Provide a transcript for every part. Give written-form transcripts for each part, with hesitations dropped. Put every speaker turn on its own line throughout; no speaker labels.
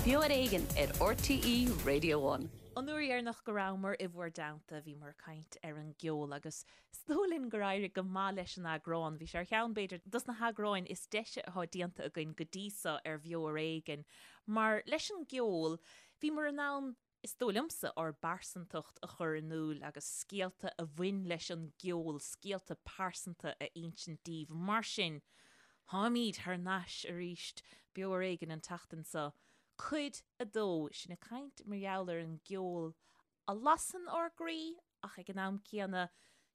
Beo ar Éigean ar RTÉ Radio One.
An uair dheireanach go rabhamar i bhur dteannta, bhíomar ag caint ar an gceol agus is dóigh linn gur éirigh go maith leis an eagrán. Bhí sé ar cheann, b'fhéidir, dos na heagráin is deise atá déanta againn go dtí so ar Bheo ar Éigean mar leis an gceol, bhíomar in ann is dóigh liomsa, ár bpearsantacht a chur in iúl agus scéalta a bhain leis an gceol, scéalta pearsanta a insint daoibh. Mar sin, táimid thar n-ais arís, Beo Ar Éigean an tseachtain seo, cuid a dó, sinn ag caint mar gheall ar an gceol a lasann ár gcroí ach ag an am céanna,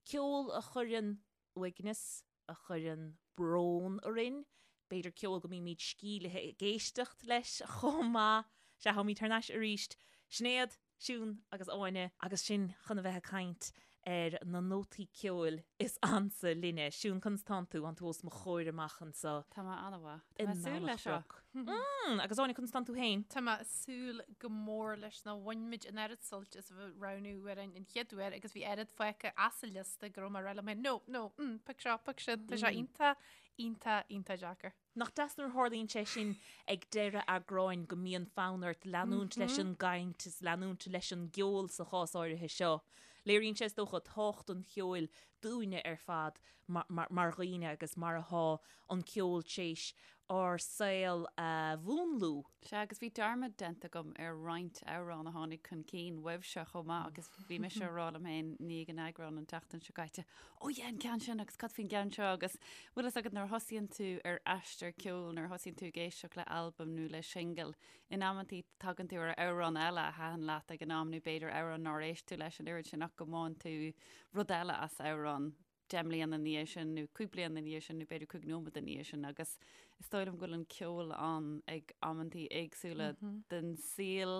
ceol a chuireann uaigneas, a chuireann brón orainn, b'fhéidir ceol go mbímid sceimhlithe ag éisteacht leis chomh maith. Sea, táimid thar n-ais arís. Sinéad, Siún agus Áine agus sinn chun a bheith ag caint ar na nótaí ceoil is ansa linne. Siún, conas tánn tú? Tánn tú os mo chomhair amach anseo.
Tá mé an-mhaith. Tá mé ag súil leis seo.
Mm, agus Áine, conas tánn tú féin?
Tá mé ag súil go mór leis nó bhain muid an oiread suilt as a bheith ag roghnú amhráin an chéad uair agus bhí oiread fágtha as an liosta go raibh mé ag rá liom féin, no, no, mm, pioc seo, pioc sin, tá sé iontach, iontach, iontach deacair.
Nach deas nuair a tharlaíonn sé sin ag deireadh eagráin go mbíonn fonn ort leanúint leis an gcaint is leanúint leis an gceol sa chás áirithe seo. Léiríonn sé is dócha tábhacht an cheoil dúinne ar fad mar dhaoine agus mar atá an ceol tréis ár saol a mhúnlú.
Sea, agus bhí dearmad déanta agam ar roinnt amhrán a tháinig chun cinn uaibhse chomh maith agus bhí mise ag rá liom féin i ndiaidh an eagráin an tseachtain seo caite, 'Ó yeah, an ceann sin agus cad faoin gceann seo' agus bhfuil fhios agat nuair a thosaíonn tú ar aistear ceoil, nuair a thosaíonn tú ag éisteacht le albam nó le singil, in amantaí tagann tú ar amhrán eile a thaitin leat ag an am nó b'fhéidir amhrán nár éist tú leis an oiread sin ach go mbaineann tú rud eile as amhrán. 10 mbliana ina dhiaidh sin nó 5 bliana ina dhiaidh sin nó b'fhéidir 5 nóiméad ina dhiaidh sin agus is dóigh liom go bhfuil an ceol ann ag amantaí éagsúla den saol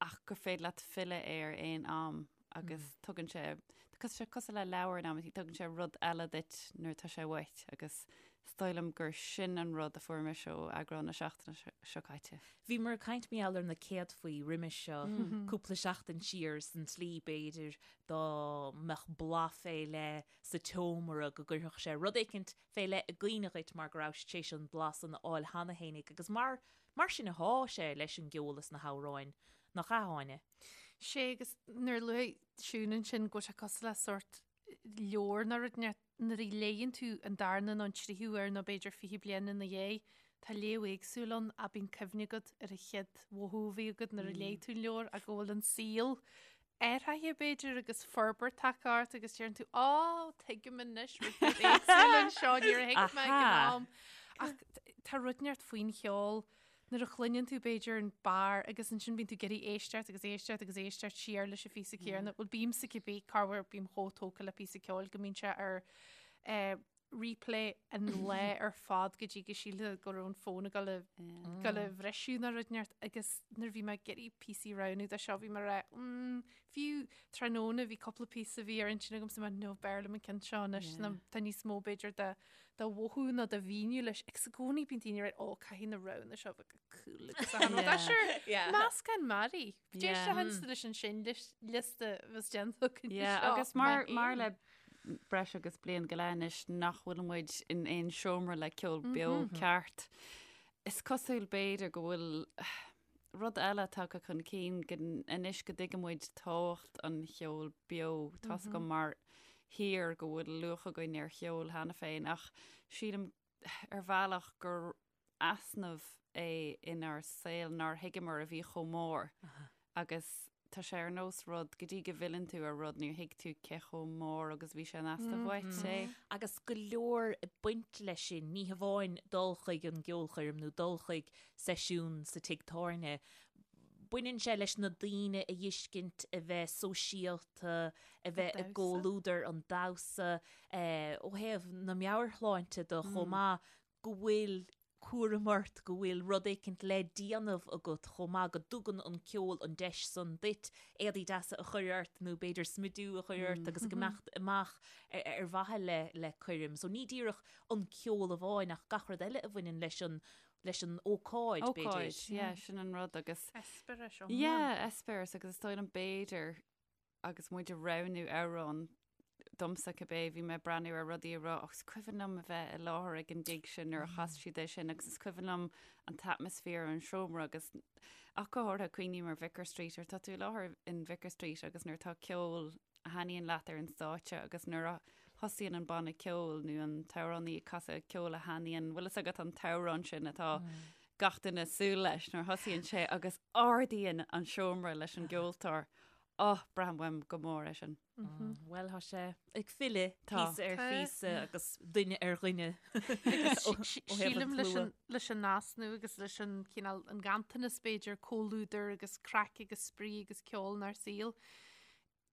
ach gur féidir leat filleadh air aon am agus tugann sé tá sé cosúil le leabhar in amantaí, tugann sé rud eile duit nuair atá sé uait agus is dóigh liom gur sin an rud a fuair mise ó eagrán na seachtaine seo caite.
Bhíomar ag caint mar gheall ar na céadfaí roimis seo cúpla seachtain siar san tslí b'fhéidir dá mbeadh boladh fé leith sa tseomra go gcuirfeadh sé rud éicint fé leith i gcuimhne dhuit mar go rabhais tar éis an blas san a fháil cheana fhéinig agus mar mar sin athá sé leis an gceol is na hamhráin, nach ea, Áine?
Sé agus nuair a luaigh Siún ansin go bhfuil sé cosúil le sórt leabhar nó rud inteacht nuair a léigheann tú an darna nó an tríú huair nó b'fhéidir 20 bliain ina dhiaidh, tá léamh éagsúil ann ach bíonn cuimhne agat ar an chéad mhothú a bhí agat nuair a léigh tú an leabhar ach go bhfuil an saol athraithe b'fhéidir agus forbairt tagtha ort agus deireann tú á tuigim anois rud éagsúil anseo níor thuig mé ag an am. Ach tá rud inteacht faoin cheol nuair a chluineann tú b'fhéidir an barr agus ansin bíonn tú ag iarraidh éisteacht agus éisteacht agus éisteacht siar leis an phíosa céanna. Bhuel bímse cibé corruair bím chomh tógtha le píosa ceoil go mbíonn sé ar eh, replay an lá ar fad go dtí go sílfeá go raibh an fón ag dul a dul a bhriseadh nó rud inteacht agus nuair a bhí mé ag iarraidh píosaí a roghnú do seo bhí mé ag rá mm, fiú tráthnóna bhí cúpla píosa a bhí ar intinn agam so mé no b'fhearr liom an ceann seo anois yeah. tá níos mó b'fhéidir de de mhothú nó de mhíniú leis agus i gcónaí bíonn daoine ag rá ó caithfidh na roghanna seo bheith go cool agus a rud sure meascán mearaí D'éist le leis an sin liosta bheas déanta againn
Yeah, seo, agus mar, mar le breis agus bliain go leith anois nach bhfuil muid in aon seomra le ceol beo ceart. Is cosúil b'fhéidir go bhfuil rud eile tagtha chun cinn go anois go dtuigeann muid tábhacht an cheoil beo. Tá's agam mar thír go bhfuil luach againn ar cheol cheana féin ach sílim ar bhealach gur easnamh é inár saol nár thuigeamar a bhí chomh mór agus tá sé ar nós rud, go dtí go bhfilleann tú ar rud níor thuig tú cé chomh mór agus a bhí sé in easnamh uait é.
Agus go leor ag baint leis sin, ní hamháin dul chuig an gceolchoirm nó dul chuig seisiún sa tigh tábhairne, baineann sé leis na daoine a fheiscint, a bheith sóisialta, a bheith i gcomhluadar, an damhsa, ó thaobh na meabhairshláinte de chomh maith, go bhfuil cúram ort, go bhfuil rud éicint le déanamh agat chomh maith, go dtugann an ceol an deis san duit éadaí deasa a chur ort nó b'fhéidir smidiú a chur ort agus ag imeacht amach ar mhaithe le le coirm. So ní díreach an ceol amháin ach gach rud eile a bhaineann leis an leis an ócáid, b'fhéidir.
Ócáid, yeah, sin an rud agus.
Eispéireas
iomlán. Yeah, eispéireas agus is dóigh liom b'fhéidir agus muid ag roghnú amhrán. domsa cibé, bhí mé ag breathnú ar rudaí ag rá, oh, is cuimhin liom a bheith i láthair ag an gig sin nuair a chas siad é sin agus is cuimhin liom an t-atmaisféar an seomra agus ach go háirithe cuimhním ar Vicar Street, nuair atá tú i láthair in Vicar Street agus nuair atá ceol a thaitníonn leat ar an stáitse agus nuair a thosaíonn an banna ceoil nó an t-amhránaí ag casadh ceol a thaitníonn, bhfuil fhios agat an t-amhrán sin atá gach duine ag súil leis nuair a thosaíonn sé agus ardaíonn an seomra leis an gceoltóir. Oh, braithim uaim go mór é sin.
Bhuel, tá sé ag filleadh píosa ar phíosa agus duine ar dhuine.
Sílim leis an easnamh agus leis an cineál an ganntanas b'fhéidir comhluadar agus craic agus spraoi agus ceol inár saol.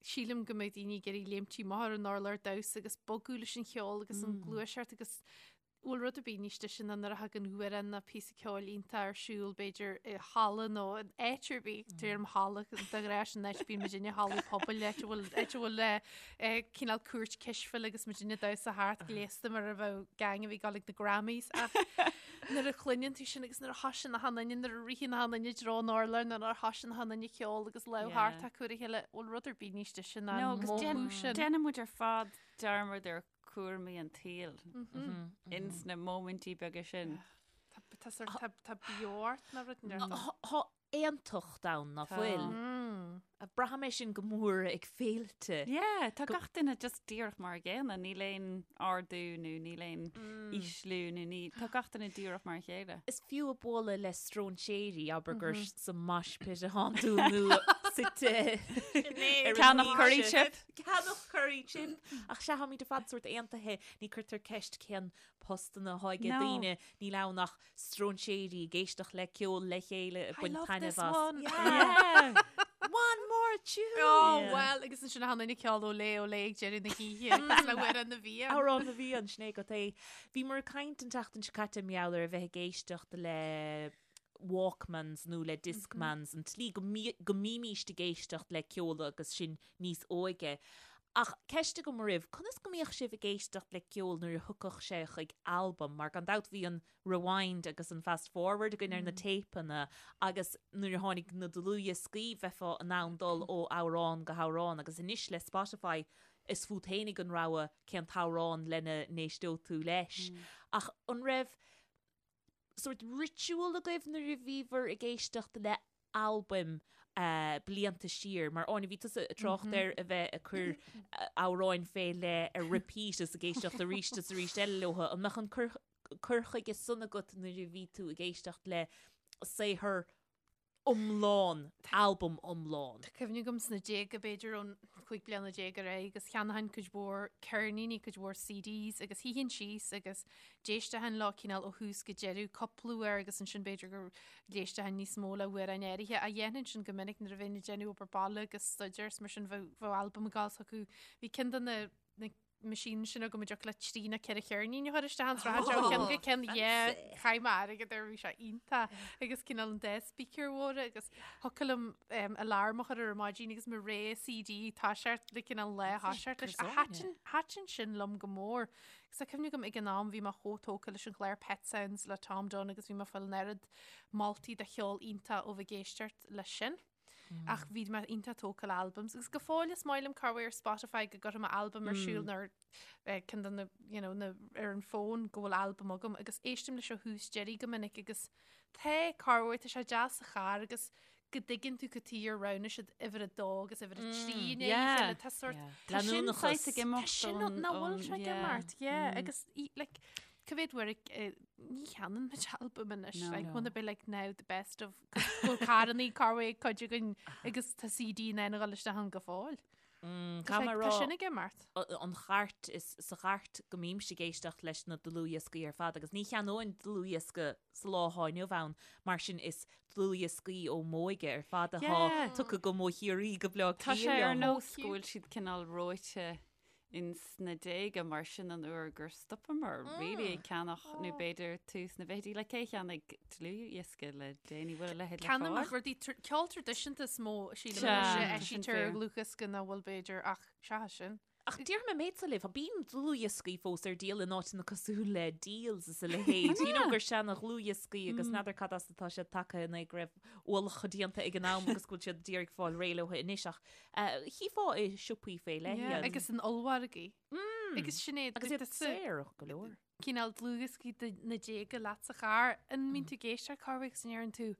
Sílim go mbeidh daoine ag iarraidh léimtí amach ar an urlár damhsa agus bogadh leis an cheol agus an gluaiseacht agus bhfuil rud ar bith níos deise ná nuair a thagann amhrán nó píosa ceoil iontach ar siúl b'fhéidir i halla nó in áit ar bith, deirim halla de ghnáth sin áit bíonn muidinne hallaí pobail áit a bhfuil áit a bhfuil cineál cúirt cispheile agus muidinne ag damhsa thart gléasta mar a bheadh gang a bhí ag dul ag na Grammys ach nuair a chluineann tú sin agus nuair a thosaíonn achan duine, nuair a ritheann achan duine i dtreo an urláir, nuair a thosaíonn achan duine ag ceol agus lámh thart acu ar a chéile, bhfuil rud ar bith níos deise ná
an
agus
mothú sin. Déanann muid ar fad dearmad ar chúraimí an tsaoil ins na móimintí beaga sin.
Tá sort, tá, tá beo ort ná rud
Tá aontacht ann ná fuil. Braithim é sin go mór ag féilte.
Yeah, tá gach duine just díreach mar a gcéanna, níl aon ardú nó níl aon ísliú nó ní, tá gach duine díreach mar a chéile.
Is fiú ag bualadh le stróinséirí, abair gur sa mosh pit atánn tú nó suite
ar an Ceannach curry chip.
Ceannach curry chip. Ach sea, táimid ar fad sórt aontaithe, ní cuirtear ceist cén postanna atá ag daoine, níl ann ach stróinséirí ag éisteacht le ceol le chéile ag baint taitneamh
as.
One. Yeah. One more tune!
Oh, well, agus ansin achan duine ag ceol Olé Olé ag deireadh na hoíche agus le Amhrán na bhFiann.
Amhrán na bhFiann, sin é agat é. Bhíomar ag caint an tseachtain seo caite mar gheall ar a bheith ag éisteacht le Walkmans nó le Discmans, an tslí go go mbímíst ag éisteacht le ceol agus sinn níos óige. Ach ceist agam oraibh, conas go mbíodh sibh ag éisteacht le ceol nuair a thiocfadh sé chuig albam? Mar gan dabht bhí an rewind agus an fast forward againn ar na téipeanna agus nuair a tháinig na dlúthdhioscaí bheifeá in ann dul ó amhrán go hamhrán agus anois le Spotify is fút fhéinig an rogha cén t-amhrán lena n-éisteodh tú leis. Ach an raibh sórt ritual agaibh nuair a bhíobhair ag éisteacht le albaim blianta siar? Mar Áine, bhí tusa ag trácht ar a bheith ag cur amhráin fé leith ar repeat is ag éisteacht arís is arís eile leo. An mbeadh an cur chuige san agat nuair a bhí tú ag éisteacht le saothar iomlán, albam iomlán.
Tá cuimhne agam sna déaga, b'fhéidir ón 15 bliana ar aghaidh, agus cheannóchainn cuid mhór ceirníní, cuid mhór CDs agus shuífinn síos agus d'éisteochainn leo cineál ó thús go deireadh cúpla uair agus ansin b'fhéidir go d'éisteochainn níos mó le hamhráin áirithe. Ach dhéanfainn sin go minic nuair a bheinn ag déanamh obair baile agus staidéar is mar sin bheadh bheadh albam ag gabháil s'acu. Bhí ceann de na na machines sin agam a dtiocfadh le trí nó ceithre cheirnín a chur isteach ann sraith seo ceann go ceann yeah chaith mé airgead air bhí sé iontach agus cineál an dá speaker mhóra agus thiocfadh liom um, alarm a chur ar maidin agus mo ré CD toiseacht le cineál lá thoiseacht leis a thaitin thaitin sin liom go mór. Agus tá cuimhne agam ag an am bhí mé chomh tógtha leis an chlár Pet Sounds le Tom Dunne agus bhí mé ag fáil an oiread moltaí de cheol iontach ó bheith ag éisteacht leis sin. Ach bhí mé iontach tógtha le albums. Agus go fóill is maith liom corruair ar Spotify go gcuirfidh mé albam ar siúl nó ar ceann de na, you know, na, ar an bhfón go bhfuil albam agam agus éistim leis ó thús deiridh go minic agus tá corruair, tá sé deas sa charr agus go dtuigeann tú cad chuige ar roghnaigh siad uimhir a dó agus uimhir a trí i ndiaidh a chéile. Tá sort
Tá sin saghas ag imeacht
Tá sin nach bhfuil sé ag imeacht, yeah. Agus like, cá mhéad uair ní cheannaíonn muid albam anois, like, wanna be like now the best of Bhfuil carrannaí corruair ag cuid againn agus tá CD in ann a dhul isteach ann go fóill.
Tá
sé- Tá sin ag imeacht.
an chairt is sa chairt go mbímse ag éisteacht leis na dlúthdhioscaí ar fad agus ní cheannóinn dlúthdhiosca sa lá atá inniu ann mar sin is dlúthdhioscaí ó m'óige ar fad atá
Yeah.
tugtha go mo Chiarraí go Bleá
Tá sé
Cliath
ar
liom.
nós go bhfuil siad cineál reoite ins na déaga mar sin an uair gur stopamar really ag ceannach nó b'fhéidir tús na bhfichidí like cé cheannaigh dlúthdhiosca le déanaí bhfuil a leithéid le
Ceannaím
fáil?
rudaí ceol traidisiúnta is mó sílim
Sea,
anois a
tá sin
eisítear ar
fíor.
dhlúthdhiosca ná bhfuil b'fhéidir ach seachas sin.
Ach déarfaidh mé an méid seo libh, bíonn dlúthdhioscaí fós ar díol in áiteanna cosúil le Dealz is a leithéid. You know gur seana dhlúthdhioscaí agus n'fheadar cad as atá siad tagtha in é go raibh ualach déanta ag an am agus go bhfuil siad d'iarraidh fáil réidh leo anois ach chífeá i siopaí fé leith
iad. Agus in ollmhargaí. Agus Sinéad,
Agus iad saor go leor.
cineál dlúthdhioscaí de na déaga leat sa charr, an mbíonn tú ag éisteacht corruair agus an ndeireann tú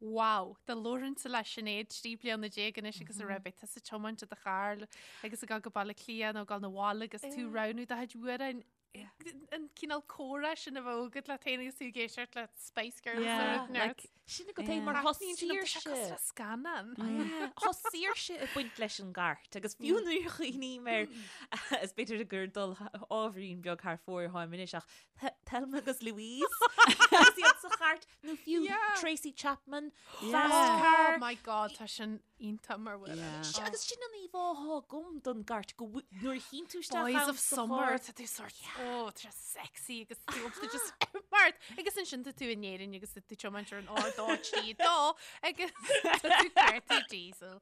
Wow, dá labhróinnse le Sinéad 13 bliana anois agus a raibh beidh tusa ag tiomáint i do charr agus ag dul go Baile Átha Cliath nó ag dul 'na bhaile agus tú ag roghnú do chuid amhráin. An cineál comhrá sin a bheadh agat leat féin agus tú ag éisteacht le Spice Girls
Yeah, nó like, Sin agat é mar tá saoirse.
Cosúil le scannán.
Tá saoirse ag baint leis an gcairt agus fiú nuair a chuimhním air is b'fhéidir gur dul ábhairín beag thar fóir atáim anois ach Thelma agus Louise agus iad sa chairt nó fiú Tracy Chapman, Fast Car.
Oh my God, tá sin iontach mar bhfuil.
Yeah. Agus sin an íomhá atá agam don gcairt go nuair a tchíonn tú isteach
Boys of Summer, tá tú sort, oh, tá sé sexy agus tú up to just mart. Agus ansin tá tú in Éirinn agus tá tú ag tiomáint ar an R2 3 2 agus tá tú cuartú diesel.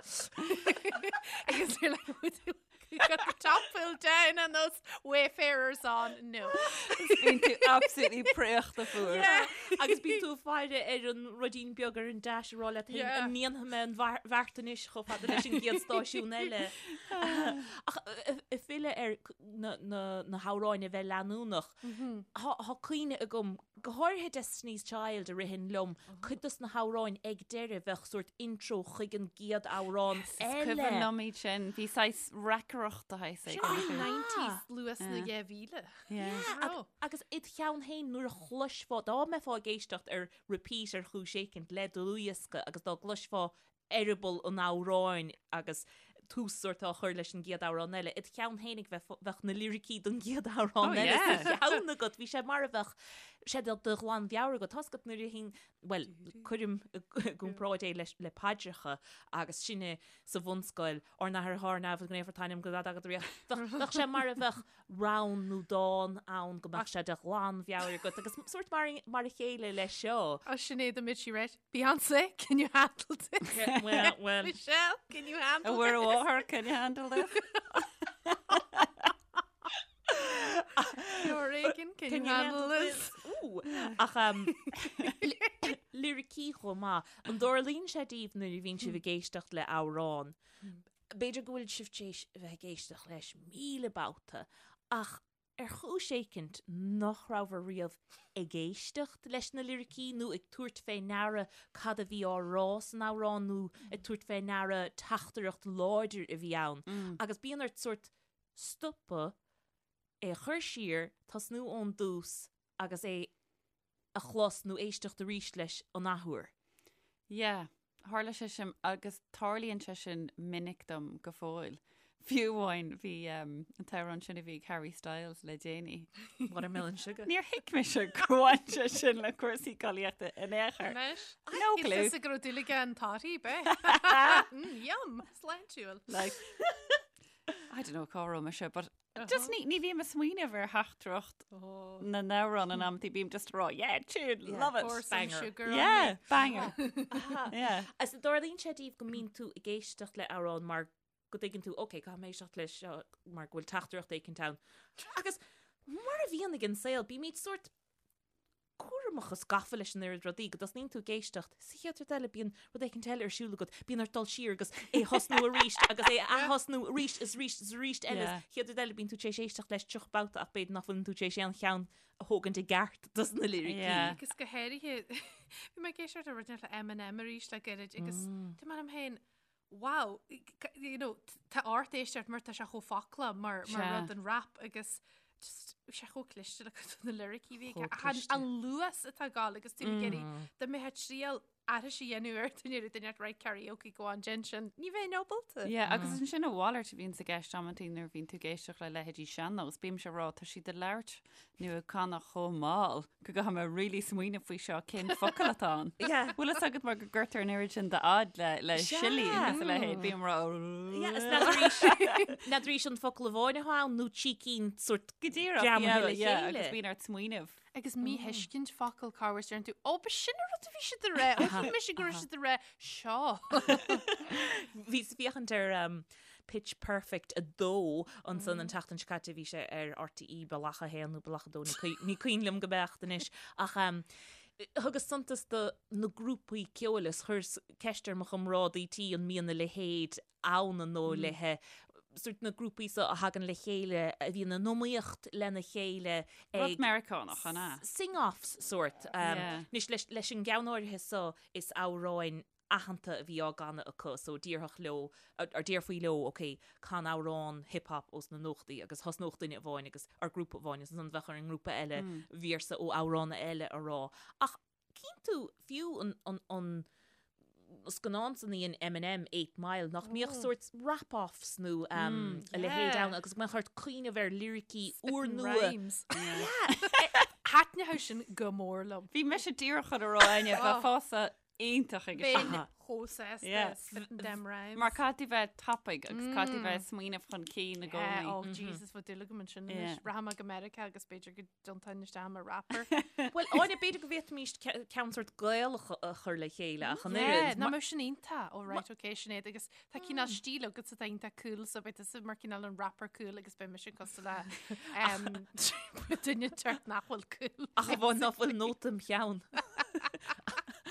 Agus you're like, Got the top pulled down and those wayfarers on. No.
Bíonn tú absolutely préachta fuar.
Yeah. Agus bíonn tú ag faire ar an ruidín beag ar an dash ag rá leat féin,
Yeah.
an ndéanfaidh mé an bhar- bheart anois chomh fada leis an gcéad stáisiún eile. Ach ag filleadh ar na, na, na hamhráin a bheith leanúnach, Tá tá cuimhne agam, go háirithe Destiny's Child a ritheann liom, cuid dos na hamhráin ag deireadh bheadh sórt intro chuig an gcéad amhrán
Is
eile.
cuimhin liom iad sin, bhí saghas reacaireacht de shaghas
Sin
éigin.
an 90s luas na 2000.
Yeah.
Raibh.
Agus id cheann féin nuair a chloisfeá, dá mbeifeá ag éisteacht ar repeat ar chúis éicint le dlúthdhiosca agus dá gcloisfeá eireaball an amhráin agus tús sórt á chur leis an gcéad amhrán eile. Id cheann féinig bheadh na liricí don gcéad amhrán
Oh,
eile
yeah.
sa cheann agat. Bhí sé mar a bheadh sé de de ghlanmheabhair agat. Tá's agat nuair a thíonn, bhuel, cuirim i gcomparáid é leis le paidreacha agus sinne sa bhunscoil, Ár nAthair atá ar neamh, go naofar t'ainm, go dtaga do ríocht. Bheadh bheadh sé mar a bheadh rann nó dán ann go mbeadh sé de ghlanmheabhair agat agus sórt mar mar a chéile leis seo.
Oh, Sinéad, an mbeidh sí right? Beyonce, can you handle this?
Yeah, well, well.
Michelle, can you handle
A Mhuire
this?
Mháthair, can you handle this?
Reagan, can, you handle this?
Ooh. Ach um, liricí chomh maith. An dtarlaíonn sé daoibh nuair a bhíonn sibh ag éisteacht le amhrán? B'fhéidir go bhfuil sibh tar éis a bheith ag éisteacht leis 1000 babhta, ach ar chúis éicint nach rabhabhair riamh ag éisteacht leis na liricí nó ag tabhairt fé ndeara cad a bhí á rá san amhrán nó ag tabhairt fé ndeara teachtaireacht láidir a bhí ann. Agus bíonn ort sórt stopadh, é a chur siar, tosnú ón dtús agus é a chlos nó éisteacht arís leis an athuair.
Yeah, tharla sé sin agus tarlaíonn sé sin minic dom go fóill. Fiú amháin bhí um, an t-amhrán sin a bhí ag Harry Styles le déanaí.
Watermelon Sugar.
Níor thuig mise gur bhain sé sin le cúrsaí collaíochta in aon chor.
Anois,
No clue.
Is go raibh dúil aige an toddy, be. Mm, yum, sláintiúil.
Like, I don't know cá raibh mise, but Just ní, ní bhím ag smaoineamh ar theachtaireacht na n-amhrán in amantaí, bím just ag rá, yeah, tune, love it.
Pour some
Banger.
sugar on
Yeah,
me.
banger. Yeah.
Is an dtarlaíonn sé daoibh go mbíonn tú ag éisteacht le amhrán mar go dtuigeann tú, ok, caithfidh mé éisteacht leis seo mar go bhfuil teachtaireacht éicint ann. Agus mar a bhíonn ag an saol, bímid sórt cúramach is gafa leis an oiread rudaí go dtosnaíonn tú ag éisteacht, sa chéad rud eile bíonn rud éicint eile ar siúl agat, bíonn ort dul siar agus é a thosnú arís agus é a ath-thosnú arís is arís is arís eile is
Yeah.
chéad rud eile bíonn tú tar éis éisteacht leis 30 babhta ach b'fhéidir nach bhfuileann tú tar éis aon cheann a thógaint i gceart dos na liricí.
Yeah.
Agus go háirithe, bhí mé ag éisteacht le rud le Eminem arís le gairid agus dúirt mé liom féin, wow, you know, tá ort éisteacht mar tá sé chomh foclach mar, mar
Sea.
rud an rap agus just bhí sé chomh cliste le cuid de na liricí a bhí aige.
Chomh
Ach an,
cliste.
an luas atá ag gabháil agus tú ag iarraidh dá mbeifeá ag triail aithris a dhéanamh air duine ar duine right karaoke go on déan sin ní bheinn ábalta.
Yeah, agus ansin a mhalairt a bhíonns i gceist amantaí nuair a bhíonn tú ag éisteacht le leithéidí sean-nós, bímse ag rá tá siad ag labhairt nó ag canadh chomh mall go gcaithfidh mé really smaoineamh faoi seo cén focal atá ann.
Yeah.
Bhfuil fhios agat mar go gcuirtear an oiread sin d'fhad le, le
Sea.
siollaí agus a leithéid, bím ag rá
Yeah, is n'fheadar n'fheadar an focal amháin atá ann nó trí cinn sórt
Go díreach,
greamaithe
yeah,
le
yeah,
chéile.
agus bíonn ort smaoineamh.
Agus míthuiscint focal corruair deireann tú, ó, ba sin an rud a bhí siad a rá, ó, shíl mise go raibh siad a rá seo.
Bhíos ag féachaint ar um, Pitch Perfect 2 ansan an tseachtain seo caite, bhí sé ar RTÉ Bealach 1 nó Bealach 2, ní cuimhin liom go beacht anois, ach thugas suntas do na grúpaí ceoil is chuireas ceist ar mo chomrádaí tí an mbíonn a leithéid ann an dóigh léithe, sort na grúpaí seo a thagann le chéile a bhíonn in iomaíocht lena chéile
ag. Rud Meiriceánach, an ea?
Sing-offs sort. Anois leis an gceann áirithe seo is amhráin aitheanta a bhí á gcanadh acu so déarfadh leo, or déarfaí leo ok, can amhrán hip hop ós na nóchaidí agus thosnódh duine amháin agus, or grúpa amháin agus ansan bheadh ar an ngrúpa eile véarsa ó amhrán eile a rá. Ach cíonn tú fiú an, an, an scannán san a dhein Eminem, Eight Mile, nach mbíodh sórt rap-offs nó a leithéid ann agus go mbeadh ort cuimhneamh ar liricí úrnua.
Rhymes. Thaitneodh sin go mór liom.
Bhí mise díreach chun a rá Áine, bheifeása iontach ag
Bheinn chomh sásta spitting them rhymes.
Mar caithfidh tú bheith tapaidh agus caithfidh tú bheith ag smaoineamh chun cinn i
Yeah,
gcónaí.
oh Jesus, bheadh dúil agam ansin anois.
Yeah.
Rachaidh mé go Meiriceá agus b'fhéidir go dtiontóinn isteach mar rapper.
Bhuel, Áine, b'fhéidir go bhféadfaimis ceann sórt Gaelach a chur le chéile ach an
Yeah,
oiread.
nach mbeadh sin iontach. Oh right, okay, Sinéad, agus tá cineál stíl agat atá iontach cool, so beidh tusa mar cineál an rapper cool agus beidh mise cosúil le um, duine inteacht nach bhfuil cool.
Ach amháin ná fuil nóta im cheann.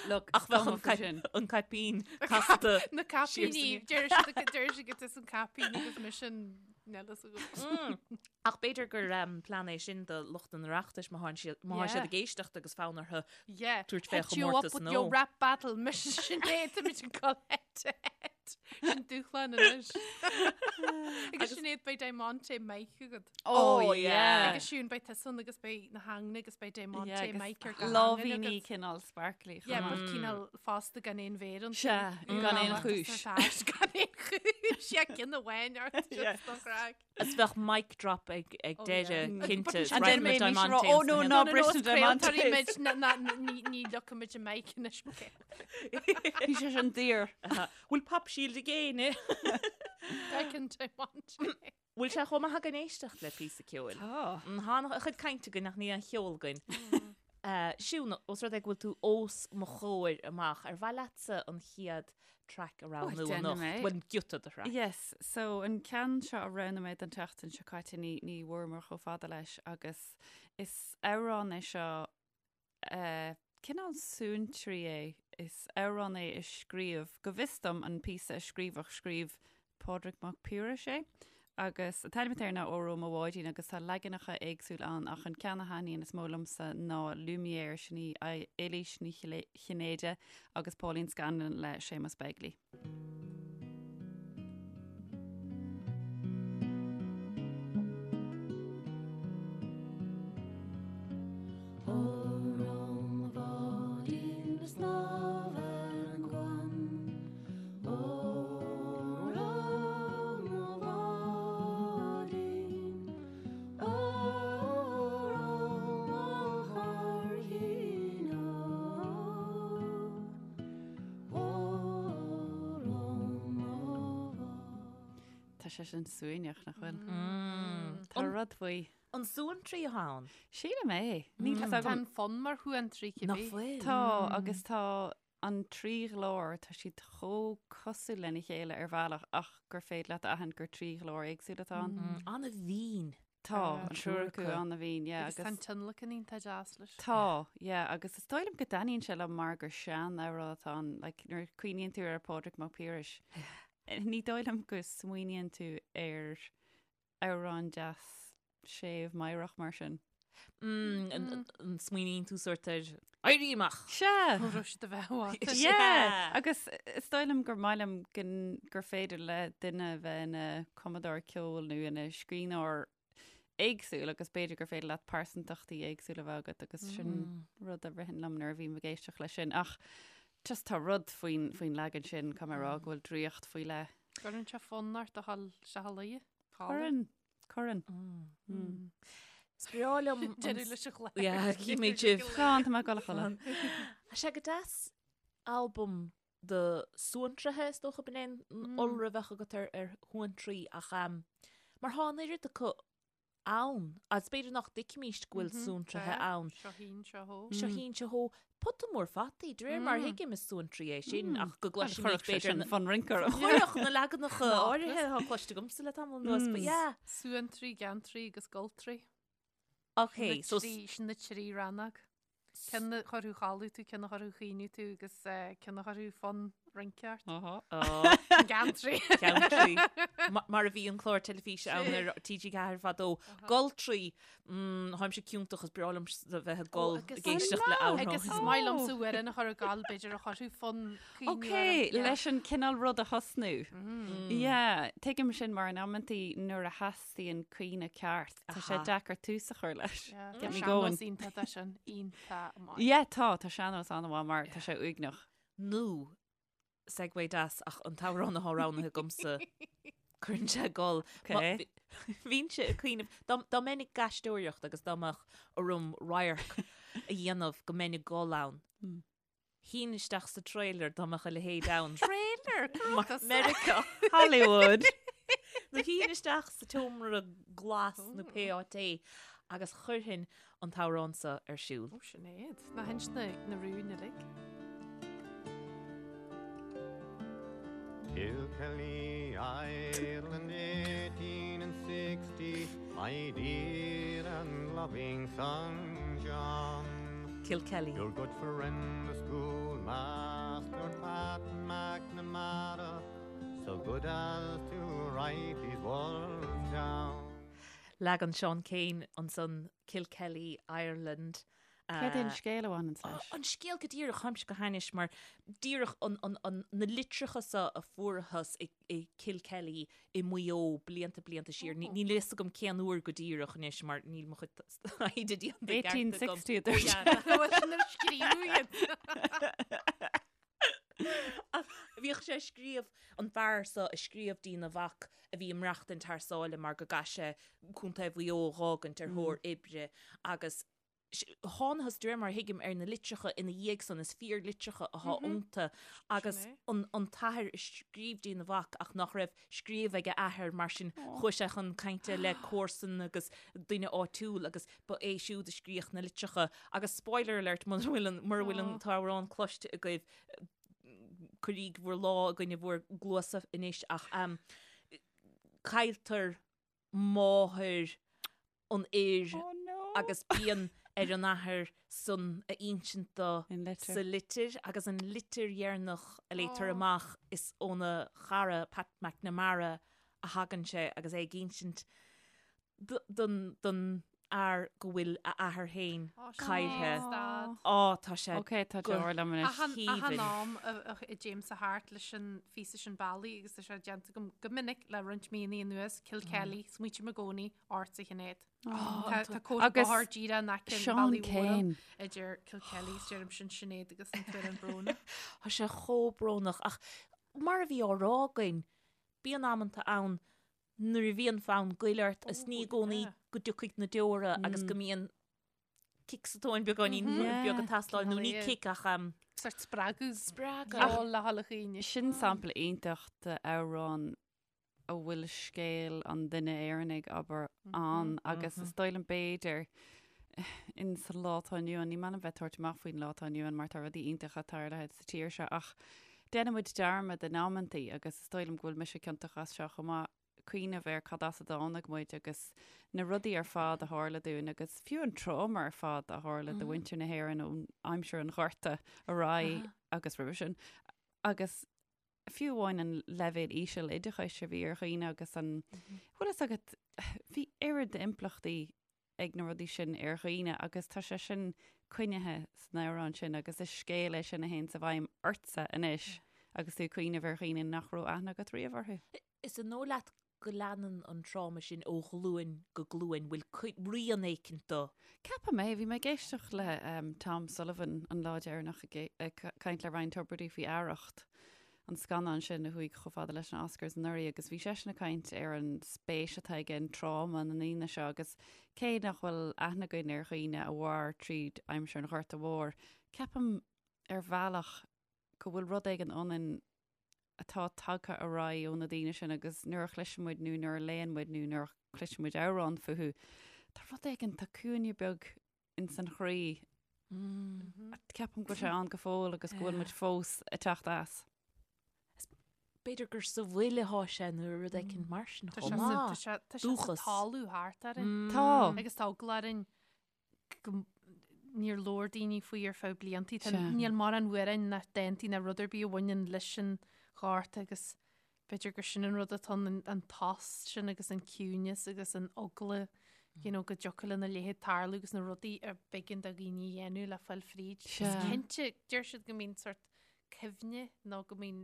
Look,
Ach bheadh an
cuma faoi sin.
an caipín casta.
Na caipíní, deir siad deir siad go tusa an caipín agus mise an níl fhios agam.
Ach b'fhéidir gur um, plean é sin do lucht an Oireachtais má thá'n siad má tá siad
Yeah.
ag éisteacht agus fonn orthu
Yeah.
tabhairt fé
Hit you up
chomórtas
with
nó.
your rap battle, mise Sinéad, táimid ag dul head to head. Sin dúshlán anois. Agus Sinéad beidh Diamante mic agat.
Oh,
Oh, yeah.
yeah.
Agus Siún beidh tusa ann agus beidh na hangne agus beidh Diamante
Yeah, agus
mic ar gach hangain
Lámhíní
agat.
cineál sparkly.
Yeah,
chomh
but
maith.
cineál fosta gan aon mhéar iontu.
Sea, gan aon chúis.
Gan aon chúis, yeah, ceann amháin ort,
Yeah.
just don chraic.
Is bheadh mic drop ag ag
Oh,
deireadh
yeah.
cinnte.
And
Right
then
with
maybe
Diamante
she'll rá, "Oh,
and
no,
Sinéad.
no, bris na
Diamantes.
Diamantes.
Ní leocaimid an mic anois, okay.
Bhí sé sin daor.
Bhfuil pop shield ag éinne?
Declan Diamante.
Bhfuil sé chomh maith againn éisteacht le píosa ceoil?
Tá.
Tá a chuid cainte againn ach níl aon cheol againn. Siún, os rud é go bhfuil tú os mo chomhair amach, ar mhaith leatsa an chéad track a roghnú
déanfaidh
anocht?
mé.
Bhuel, giota de thrack.
Yes, so an ceann seo a roghnaigh mé don tseachtain seo caite ní ní bhfuaireamar chomh fada leis agus is amhrán é seo Cineál suantraí é. Is amhrán é a scríobh, go bhfios dom, an píosa a scríobhadh, scríobh Pádraig Mac Piarais é agus an t-ainm atá air ná Óró Mo Bháidín agus tá leaganacha éagsúil ann ach an ceann a thaitníonn is mó liomsa ná Lumière, sin í Éilís Ní Chinnéide agus Pauline Scanlon le Séamus Begley. Tá sé sin suaimhneach, nach bhfuil? Tá rud faoi.
An suantraí atá ann?
Sílim é. Níl fhios
Tá
agam.
an fonn mar shuantraí cibé.
Nach bhfuil?
Tá, agus tá an trí ghlór, tá siad chomh cosúil lena chéile ar bhealach ach gur féidir leat a aithint gur trí ghlór éagsúil atá ann.
An-mhín.
Tá, an triúr acu an-mhín, yeah.
Agus tá an tionlacan iontach deas leis.
Tá, yeah, agus is dóigh liom go dtaitníonn sé liom mar gur sean-amhrán atá ann, like, nuair a cuimhníonn tú ar Pádraig Mac Piarais, ní dóigh liom go smaoiníonn tú ar amhrán deas séimh meidhreach mar sin.
Mm, an smaoiníonn tú sórt ar Éirí Amach!
Sea!
Ó raibh siad a bheith uait.
Yeah! Agus is dóigh liom gur maith liom gur féidir le duine bheith ina cumadóir ceoil nó ina scríbhneoir éagsúil agus b'fhéidir gur féidir leat pearsantachtaí éagsúla a bheith agat agus sin rud a ritheann liom nuair a bhím ag éisteacht leis sin. Ach just tá rud faoin faoin leagan sin, caithfidh mé a rá go bhfuil draíocht faoi leith.
Cuireann sé fonn ort a dhul isteach a luí.
Cuireann, cuireann.
Is breá liom an-
Deireadh leis an chlár.
Yeah, címid sibh.
Slán, tá mé ag dul a chodladh.
Tá sé go deas albam de suantraithe, is dócha, b'in é an iolra a bheadh agat ar ar shuantraí ach mar tá an oiread acu. ann, agus b'fhéidir nach dtuigfimíst go bhfuil suantraithe ann.
Seo thín, seo thó.
Seo thín, seo thó. Pota mór fataí, de réir mar a thuigim is suantraí é sin, ach go gcloisimid
Chuirfeadh sé
b'fhéidir
sin fonn rince orm.
Chuirfeadh na leaganacha áirithe atá cloiste agamsa le tamall anuas, but yeah.
Suantraí, geantraí agus goltraí.
Ok, so.
Sin na trí rannóg. Ceann a chuirfeadh a chodladh tú, ceann a chuirfeadh a chaoineadh tú agus ceann a chuirfeadh fonn rince ort. Geantraí.
Geantraí. Mar a bhí an clár teilifíse ann ar TG4 fadó. Goltraí. Táimse ciontach is breá liom a bheith ag gol ag éisteacht le amhrán.
Agus is maith liomsa amhrán a chur ag gol b'fhéidir a chuirfeadh fonn caoineadh
Ok,
orm.
leis an cineál rud a thosnú. Yeah, tuigim sin mar in amantaí nuair a theastaíonn caoineadh ceart, tá sé deacair tús a chur leis.
Get me going. Sean-nós iontach é sin, iontach maith.
Yeah, tá, tá sean-nós an-mhaith mar tá sé uaigneach.
Nó, segue deas ach an t-amhrán atá roghnaithe agamsa, cuireann sé ag gol.
Ok.
Bhínnse ag cuimhneamh, dá mbeinn ag aisteoireacht agus dá mbeadh orm radharc a dhéanamh go mbeinn ag gol ann, Shuínn isteach sa trailer dá mbeadh a leithéid ann.
Trailer?
Meiriceá.
Hollywood.
Nó shuínn isteach sa tseomra glas nó pé áit é agus chuirfinn an t-amhrán seo ar siúl.
Ó, Sinéad. Ná hinis na na rúin uilig.
Kilkelly, Ireland, 1860, my dear and loving son John.
Kilkelly.
Your good friend, the schoolmaster, Pat McNamara, so good as to write these words down.
Leagan Seán Keane ansan Kilkelly, Ireland.
Céard é an scéal a bhaineann leis?
An scéal go díreach, táimse go hainnis mar díreach na litreacha seo a fuarthas i Kilkelly i Maigh Eo blianta blianta siar. Níl a fhios agam cén uair go díreach anois mar níl mo chuid taighde déanta i gceart agam.
1860 a dúirt sé.
Bhuel, sin ar scríobhadh iad.
Ach bhíodh sé ag scríobh, an fear seo ag scríobh dtína mhac a bhí ag maireachtaint thar sáile mar go gcaith sé Contae Mhaigh Eo a dh'fhágaint ar thóir oibre agus thánathas, de réir mar a thuigim, ar na litreacha ina dhiaidh san, is fíorlitreacha atá iontu agus an an t-athair ag scríobh dtína mhac ach nach raibh scríobh ag a athair mar sin chuaigh sé chun cainte le comharsan agus duine áitiúil agus ba é siúd a scríodh na litreacha agus spoiler alert mura bhfuil an mura bhfuil an t-amhrán cloiste agaibh cuiríg bhur lámh i gcoinne bhur gcluasa anois ach cailltear máthair an fhir agus bíonn ar an athair san a insint dó sa litir agus an litir dheireanach a léitear amach is óna chara Pat McNamara a thagann sé agus é ag insint don fhear go bhfuil a athair féin caillthe. Á, tá sé
Ok, tá deor liom anois.
Achan am a dtéimse thart leis an phíosa sin bealaigh agus tá sé déanta agam go minic le roinnt míonna anuas, Kilkelly, smaoitím i gcónaí ortsa a Shinéad. Tá cóta bóthair díreach in aice an
Seán
bhealaigh mhóir
Keane.
idir Kilkelly is deirim sin Sinéad agus an t-amhrán brónach.
Tá sé chomh brónach ach mar a bhí á rá againn, bíonn amanta ann nuair a bhíonn fonn goil ort is ní i gcónaí go dtiocfaidh na deora agus go mbíonn cic sa tóin beagáinín beag ag teastáil nó ní cic ach
Sort spreagadh.
Spreagadh.
Ceol le dhul a chaoineadh.
Sin sampla iontach d'amhrán a bhfuil scéal an duine Éireannaigh, abair, ann agus is dóigh liom b'fhéidir in sa lá atá inniu ann, ní maith liom bheith ag tabhairt amach faoin lá atá inniu ann mar tá rudaí iontacha tarlaithe sa tír seo ach déanann muid dearmad in amantaí agus is dóigh liom go bhfuil mise ciontach as seo chomh maith, cuimhneamh ar cad as a dtáinig muid agus na rudaí ar fad a tharla dúinn agus fiú an tráma ar fad a tharla do mhuintir na hÉireann ón aimsir an Ghorta ar aghaidh agus roimhe sin agus fiú amháin an leibhéal íseal oideachais a bhí ar dhaoine agus an, bhfuil fhios agat, bhí oiread d'impleachtaí ag na rudaí sin ar dhaoine agus tá sé sin coinnithe san amhrán sin agus is scéal é sin a théann i bhfeidhm ortsa anois agus tú ag cuimhneamh ar dhaoine nach raibh aithne agat riamh orthu.
Is an dóigh leat go leanann an tráma sin ó ghlúin go glúin, bhfuil rian éicint dó?
Ceapaim é. Bhí mé ag éisteacht le Tom Sullivan an lá deireanach ag caint le Ryan Tubridy faoi Arracht, an scannán sin a chuaigh chomh fada leis na Oscars anuraidh agus bhí seisean ag caint ar an spéis atá aige in tráma na ndaoine seo agus cé nach bhfuil aithne againn ar dhaoine a mhair tríd aimsir an Ghorta Mhóir, ceapaim ar bhealach go bhfuil rud éigin ionainn. atá tagtha ar aghaidh ó na daoine sin agus nuair a chloiseann muid nó nuair a léann muid nó nuair a chloiseann muid amhrán fúthu, tá rud éigin, tá cúinne beag ins an chroí. Ceapaim go bhfuil sé ann go fóill agus go bhfuil muid fós ag teacht as.
B'fhéidir gur sa bhfuil atá sé nó rud éicint mar sin chomh maith.
Tá sé sa talamh thart orainn.
Tá.
Agus tá eagla orainn go níor labhair daoine faoi ar feadh bliantaí. Tá níl mórán amhráin ná dántaí ná rud ar bith a bhaineann leis an ghorta agus b'fhéidir gur sin an rud atá ann, an tost sin agus an ciúineas agus an eagla you know, go dtiocfadh lena leithéid tarlú agus na rudaí a b'éigean do dhaoine a dhéanamh le fáil fríd. Is cinnte, deir siad go mbíonn sort cuimhne nó go mbíonn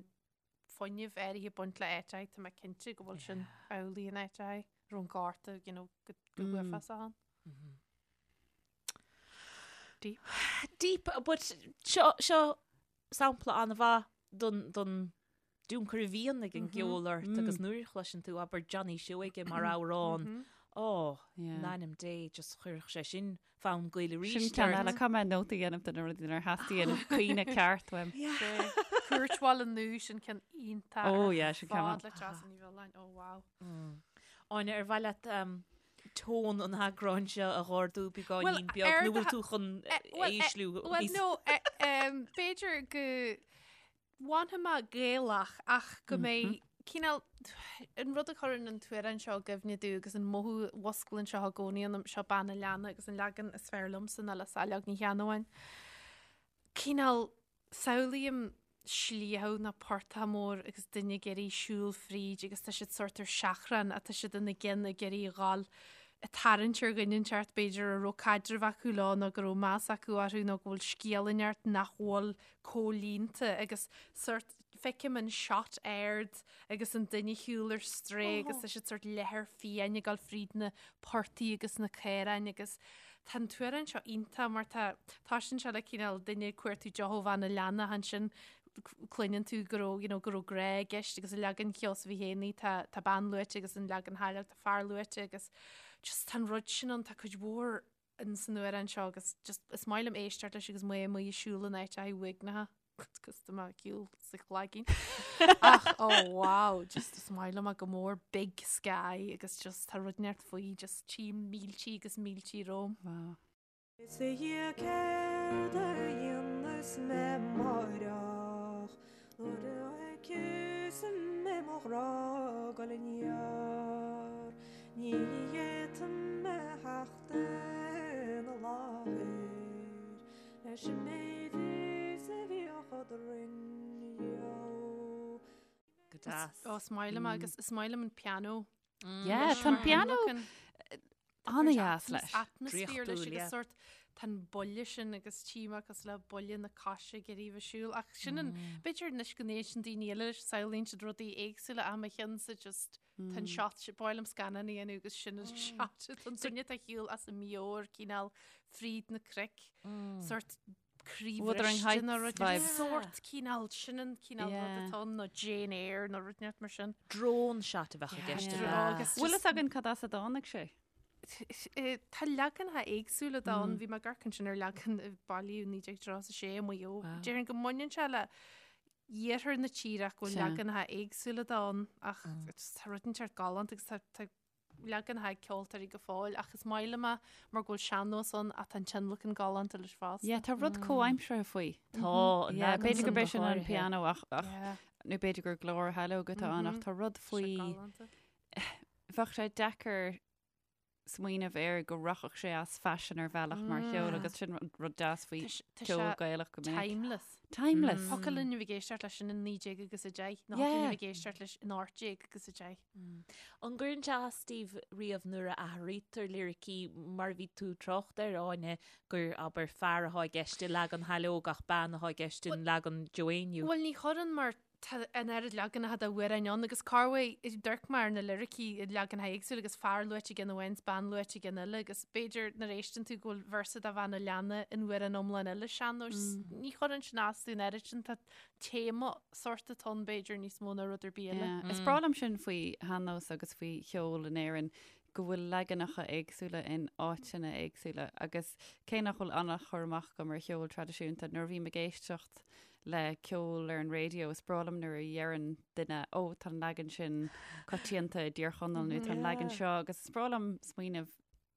fuinneamh áirithe ag baint le áit tá mé cinnte go bhfuil sin amhlaidh in áit raibh an gorta you know, go go huafásach ann.
Deep. Deep, but seo, seo sampla an-mhaith don, don tionchar a bhíonn ag an gceol ort agus nuair a chloiseann tú abair Johnny Seoige mar amhrán, ó, in ainm Dé, just chuirfeadh sé sin fonn goil arís.
Sin ceann eile, caithfidh mé nóta a dhéanamh de na rudaí nuair a theastaíonn caoineadh ceart uaim.
Cúirt Bhaile Nua sin ceann iontach.
Ó, yeah, sin ceann
maith. Fad le Treasa Ní Mhiolláin, ó wow.
Áine, ar mhaith leat tón an eagráin seo a dh'ardú beagáinín beag nó bhfuil tú chun ísliú?
Bhuel, no, b'fhéidir go bhfanfaidh mé Gaelach ach go mbeidh cineál an rud a chuireann an t-amhrán seo i gcuimhne domh agus an mothú a mhusclaíonn seo i gcónaí ionam, seo Bean an Leanna agus an leagan is fearr liomsa ná le Saileog Ní Cheannabháin. Cineál Samhlaím sliabh nó portach mór agus duine ag iarraidh siúl fríd agus tá siad sórt ar seachrán ach tá siad ina gcionn ag iarraidh a dhul ag tarraingt ar dhuine inteacht b'fhéidir a raibh caidreamh acu leo nó go raibh meas acu orthu nó go bhfuil scéal inteacht nach bhfuil comhlíonta agus sórt feicim an shot ard agus an duine ag siúl ar strae agus tá siad sórt leathar fiáin ag dul fríd na portaigh agus na caoráin agus tá an t-amhrán seo iontach mar tá toisíonn sé le cineál duine ag cuartú deoch ó bhean an leanna ansin cluineann tú go raibh you know, go raibh grá i gceist agus i leagan Sheosaimh Uí Fhéinní tá tá bean luaite agus an leagan Shaileog tá fear luaite agus just tá an rud sin ann tá cuid mhór in san amhrán seo agus just is maith liom éisteacht leis agus mé amuigh ag siúl in áit uaigneach agus tá mé ag siúl sa Chlaigín. Ach oh wow, just is maith liom go mór big sky agus just tá rud inteacht faoi just tím míltí agus míltí romham.
Wow.
Is a Dhia céard a dhéanfas mé amáireach nuair a fheicfeas mé mo ghrá ag dul aniar ní fhéadfaidh mé theacht ina láthair leis an méid is a bhíodh eadrainn riamh.
Go deas.
Ó, is maith liom agus is maith liom an pianó.
Yeah, tá an pianó an-dheas leis.
Atmaisféar leis agus sórt tá an buille sin agus tím agus le buille na coise ag iarraidh bheith siúl ach sin an b'fhéidir anois go n-éisteann daoine eile leis samhlaíonn siad rudaí éagsúla ach mo cheannsa just tá an shot sin b'áil liom scannán a dhéanamh agus sin an shot tá an duine atá ag siúl as a meabhair cineál fríd na cnoic sórt
Wuthering
croíbhriste
Heights
nó rud
vibes.
sórt cineál sin an cineál rud
Yeah.
atá ann nó Jane Eyre nó rud inteacht mar sin.
Drone shot a bheadh i gceist
Yeah.
ar a.
Agus
Bhfuil
just-
fhios againn cad as a dtáinig sé?
Eh, Tá leaganacha éagsúla de ann, bhí mé ag amharc ansin ar leagan a bailíodh 1936 i Maigh Eo. Déarfainn go mbaineann sé le iarthar na tíre ach go bhfuil
Sea.
leaganacha éagsúla de ann ach tá rud inteacht galánta agus tá tá leaganacha ag ceoltóirí go fóill ach is maith liom é mar go bhfuil sean-nós ann ach tá an tionlacan galánta leis fosta.
Yeah, tá rud comhaimseartha faoi.
Tá, an
Yeah,
leagan
b'fhéidir
san
gurb é
go
sin an
háirithe.
pianó ach ach
Yeah.
nó b'fhéidir gur glór Shaileog atá ann ach tá rud
Tá sé
faoi
galánta.
bheadh sé deacair smaoineamh air go rachadh sé as faisean ar bhealach mar cheol agus sin rud deas faoi
Tá sé- tá
ceol
sé
Gaelach go minic.
Timeless.
Timeless.
Thiocfadh linn a bheith ag éisteacht leis sin in 19 agus 10, nó
Yeah.
thiocfadh linn a bheith ag éisteacht leis in 18 agus 10.
An gcuireann sé as daoibh riamh nuair a athraítear liricí mar a bhí tú ag trácht air, Áine, gur, abair, fear atá i gceist i leagan Shaileog ach bean atá i gceist in leagan Joe Éinniú?
Bhuel, ní chuireann mar tá an oiread leaganacha d'amhráin ann agus corruair d'amharc mé ar na liricí i leaganacha éagsúla agus fear luaite i gceann amháin is bean luaite i gceann eile agus b'fhéidir nuair a éisteann tú go bhfuil véarsa de bhean an leanna in amhrán iomlán eile sean-nóis. Ní chuireann sin as domh an oiread sin tá téama sórt atá ann b'fhéidir níos mó ná rud ar bith eile.
Yeah. Is breá liom sin faoi shean-nós agus faoi cheol in Éirinn go bhfuil leaganacha éagsúla in áiteanna éagsúla agus cé nach bhfuil an-chur amach agam ar cheol traidisiúnta nuair a bhím ag éisteacht. le ceol ar an raidió, is breá liom nuair a dheireann duine, ó, tá an leagan sin coitianta i dTír Chonaill nó tá an leagan seo agus is breá liom smaoineamh,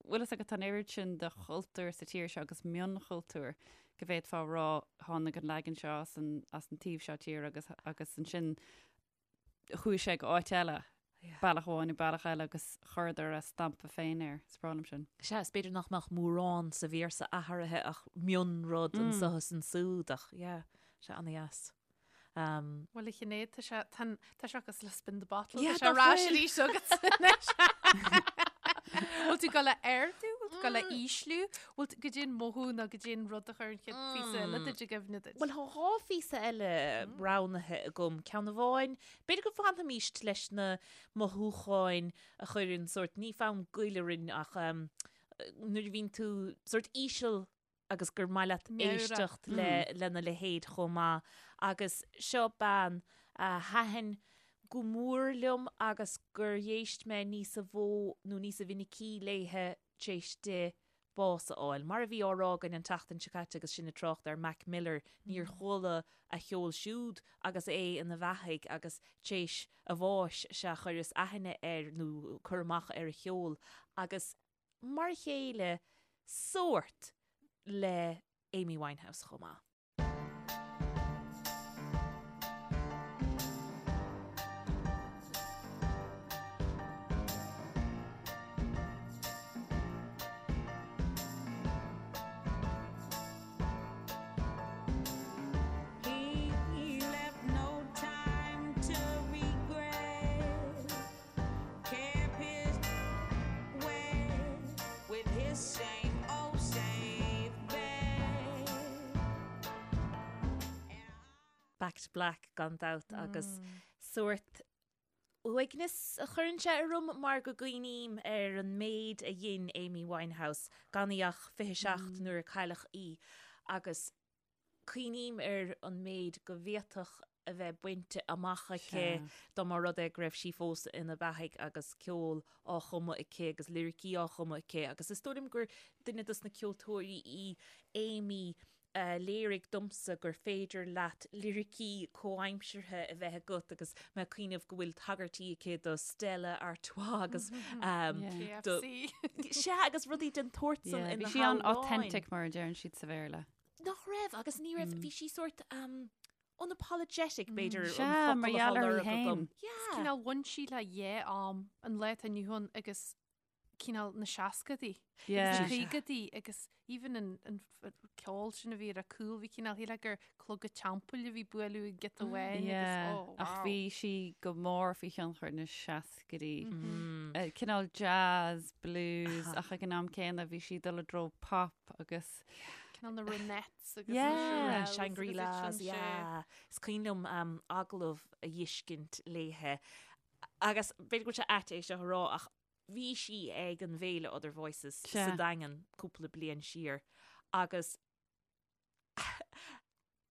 bhfuil fhios agat, tá an oiread sin de chultúr sa tír seo agus mionchultúr go bhféadfá a rá tháinig an leagan seo as an, as an taobh seo tíre agus, agus ansin chuaigh sé go áit eile, bealach amháin nó bealach eile agus chuireadar a stampa féin air. Is breá liom sin.
Sea, is b'fhéidir nach mbeadh mórán sa véarsa athraithe ach mionrud anseo is ansúd ach yeah, sé ana-dheas.
Um, Bhuel a Shinéad, tá sé, tá, tá sé cosúil le spin the bottle, tá sé ar ais arís agat anois. Bhfuil tú ag dul a ardú, bhfuil tú ag dul a ísliú, bhfuil tú, goidé an mothú nó goidé an rud a chuir an chéad phíosa eile duit i gcuimhne duit.
Bhuel, tá dhá phíosa eile roghnaithe agam. Ceann amháin, b'fhéidir go bhfanfaimís leis na mothúcháin a chuireann sórt, ní fonn goil orainn ach nuair a bhíonn tú sórt íseal agus gur maith leat éisteacht le lena leithéid chomh maith. Agus seo bean a thaitin go mór liom agus gur éist mé níosa mhó nó níosa mhinicí léithe tar éis di bás a fháil. Mar a bhí á rá againn an tseachtain seo caite agus sinn ag trácht ar Mac Miller, níor chuala a cheol siúd agus é ina bheathaidh agus tar éis a bháis sea chuireas aithne air nó cur amach ar a cheol agus mar a chéile sórt le Amy Winehouse chomh maith. Back to Black gan dabht agus sórt uaigneas a chuireann sé orm mar go gcuimhním ar an méid a dhein Amy Winehouse gan í ach 27 nuair a cailleadh í agus cuimhním ar an méid go bhféadfadh a bheith bainte amach aici dá mba rud é go raibh sí fós ina beathaidh agus ceol á chumadh aici agus liricí á chumadh aici agus is dóigh liom gur duine dos na ceoltóirí í Amy a léirigh domsa gur féidir leat liricí comhaimseartha a bheith agat agus mé ag cuimhneamh go bhfuil tagairtí aici do Stella Artois agus
do
Sea agus rudaí den tsórt san ina
Bhí sí an-authentic mar a deireann siad sa Bhéarla.
Nach raibh, agus ní raibh, bhí sí sórt um, unapologetic, b'fhéidir, an
Sea,
focal
mar
atá
gheall uirthi
lorg agam.
féin.
Yeah.
Cineál bhain sí le dhá am, an lá atá inniu ann agus cineál na seascadaí.
Yeah.
Agus na caogaidí agus even an, an f- ceol sin a bhí ar a cúl, bhí cineál shílfeá gur clog an teampaill a bhí bualadh an giota amháin agus
Yeah.
oh,
Ach
wow.
bhí sí go mór faoi thionchar na seascaidí.
Mm.
Eh, Cineál jazz, blues, ach ag an am céanna bhí sí ag dul i dtreo pop agus
Cineál na Ronettes agus
Yeah.
na Shirelles
Shangri-Las,
agus sin sé.
yeah. Is cuimhin liom um, agallamh a dh'fheiscint léithe. Agus b'fhéidir go bhfuil sé ait é seo a rá ach bhí sí ag an bhféile Other Voices
Sea.
sa Daingean cúpla bliain siar agus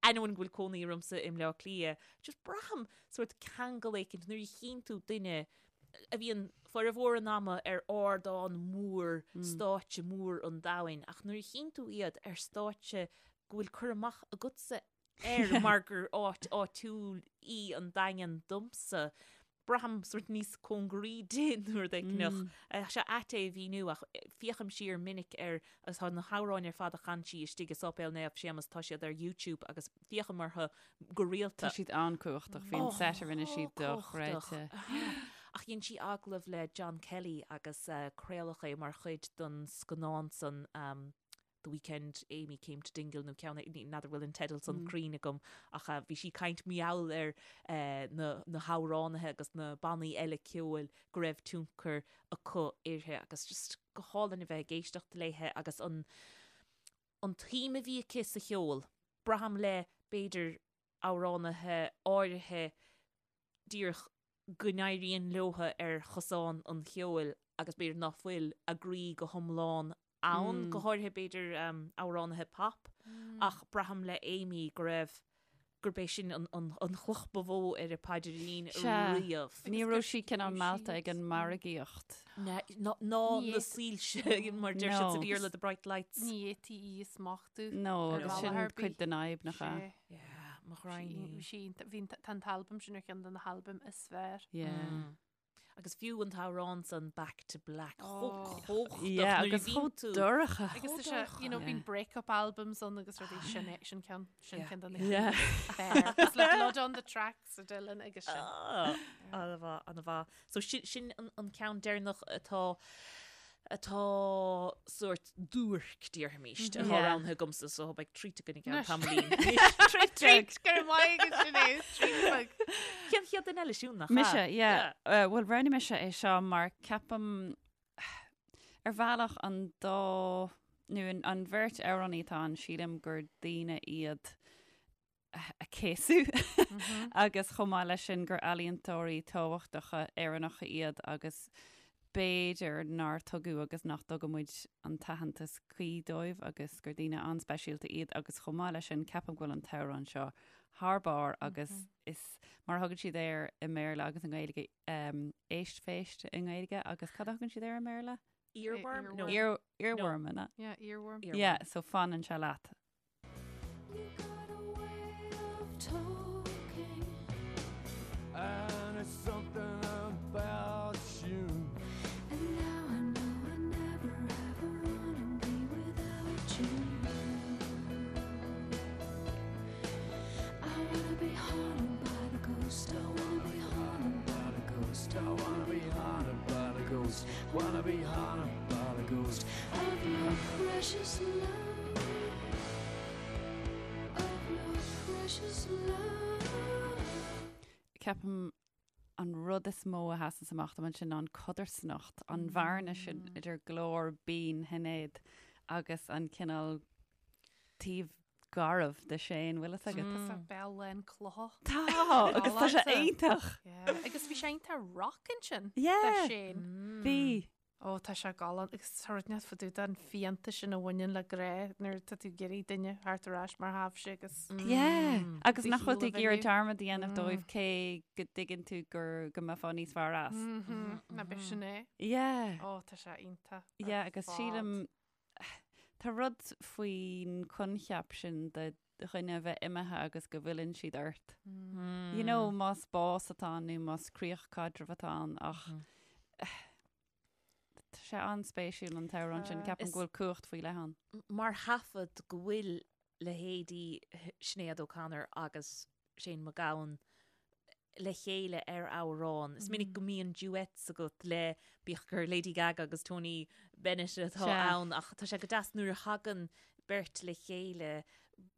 ainneoin go bhfuil cónaí ormsa i mBleá Cliath, just braithim sórt ceangal éicint nuair a chíonn tú duine a bhíonn formhór an ama ar ardán mór, stáitse mór an domhain, ach nuair a chíonn tú iad ar stáitse go bhfuil cur amach agatsa air mar gur áit áitiúil í an Daingean domsa, braithim sórt níos cóngaraí di nó rud éicneach. Tá sé ait é a mhíniú ach féachaim siar minic ar agus tá na hamhráin ar fad a chan sí istigh i Sáipéal Naomh Séamas, tá siad ar YouTube agus féachaim orthu go rialta.
Tá siad an-cumhachtach, bhí an set a rinne sí dochreidte.
Ach dhein sí agallamh le John Kelly agus craoladh é mar chuid den scannán san The Weekend Amy Came to Dingle nó ceann, n'fheadar bhfuil an teideal san cruinn agam ach bhí sí ag caint mar gheall ar na na hamhránaithe agus na bannaí eile ceoil go raibh tionchar acu uirthi agus just go hálainn a bheith ag éisteacht léithe agus an an tsuim a bhí aici sa cheol. Braithim le b'fhéidir amhránaithe áirithe díreach go n-éiríonn leotha ar chosán an cheoil agus b'fhéidir ná fuil a gcroí go hiomlán ann, go háirithe b'fhéidir amhránaithe pop, ach braithim le Amy go raibh, gurb é sin an an chloch ba mhó ar a paidrín riamh.
Ní raibh sí cineál meallta ag an margaíocht.
Ná na soilse mar deir siad sa Bhéarla, the bright lights.
Ní fhéadfaí í a smachtú.
No, agus sin cuid den fhadhb nach ea?
Yeah. mo ghraidhin
í. Bhí sí, bhí, tá an t-albam sin ar cheann de na halbaim is fearr.
Yeah.
Agus fiú an t-amhrán san Back to Black, chomh cumhachtach
Yeah,
nuair a
agus
bhíonn
chomh
tú.
dorcha.
Agus tá sé, you know, bíonn break-up albums ann agus rudaí sin é, sin ceann, sin ceann de na
Yeah.
cinn is fearr. It's like Blood on the Tracks a Dylan agus sin.
Ah, An-mhaith, an-mhaith. So sin, sin an, an ceann deireanach atá atá sórt duairc, déarfaimis, atá
Yeah.
roghnaithe agamsa, so beidh treat againn i gceann
Anois.
tamaillín.
Treat, go raibh maith agat Sinéad, treat beag.
Cén chéad duine eile Siún, nach ea?
Mise, yeah. Uh, Bhuel, roghnaigh mise é seo mar ceapaim ar bhealach an dá nó an, an bheirt amhránaí atá ann, sílim gur daoine iad a céasadh agus chomh maith leis sin gur ealaíontóirí tábhachtacha Éireannacha iad agus b'fhéidir nár tugadh agus nach dtugann muid an t-aitheantas cuí dóibh agus gur daoine an-speisialta iad agus chomh maith leis sin ceapaim go bhfuil an t-amhrán seo thar barr agus is mar a thugann siad air i mBéarla agus i nGaeilge um, éist phéist i nGaeilge agus cad a thugann siad air i mBéarla?
Earworm? No.
Ear, earworm, no.
Yeah, earworm.
Yeah, so fanann sé leat.
You got a way of talking.
And it's something about you.
And now I know I never ever wanna be without you. I wanna be haunted by the ghost. I wanna be haunted by the ghost.
I wanna be haunted by the ghost. Wanna be haunted by the ghost.
Of your precious love. Of your precious love.
Ceapaim an rud is mó a sheasann amach dom ansin ná an codarsnacht, an bhearna sin idir glór binn Shinéad agus an cineál taobh garbh de Shane, bhfuil fhios agat?
Tá sé béal lán clocha.
Tá, agus tá sé iontach.
Yeah. Agus bhí sé iontach rock ansin.
Yeah.
De Shane.
Bhí.
Ó, tá sé galánta agus tá rud inteacht fá dtaobh den phianta sin a bhaineann le grá nuair atá tú ag iarraidh duine a theacht ar ais mar a thaibhse agus.
Yeah. Agus
Do
nach bhfuil tú
shaol a
ag iarraidh
bhriseadh.
dearmad a dhéanamh dóibh cé go dtuigeann tú gur go mbeifeá níos fearr as.
Ná b'shin é.
Yeah.
Ó, tá sé iontach. ar
Yeah, agus
fad.
sílim tá rud faoin coincheap sin de dhuine a bheith imithe agus go bhfilleann siad ort. You know, más bás atá ann nó más críoch caidrimh atá ann ach tá sé an-spéisiúil an t-amhrán sin, ceapaim go bhfuil cumhacht faoi leith ann.
Mar thaifead go bhfuil leithéidí Sinéad O'Connor agus Shane MacGowan le chéile ar amhrán. Is minic go mbíonn duets agat le bíodh gur Lady Gaga agus Tony Bennett atá ann ach tá sé go deas nuair a thagann beirt le chéile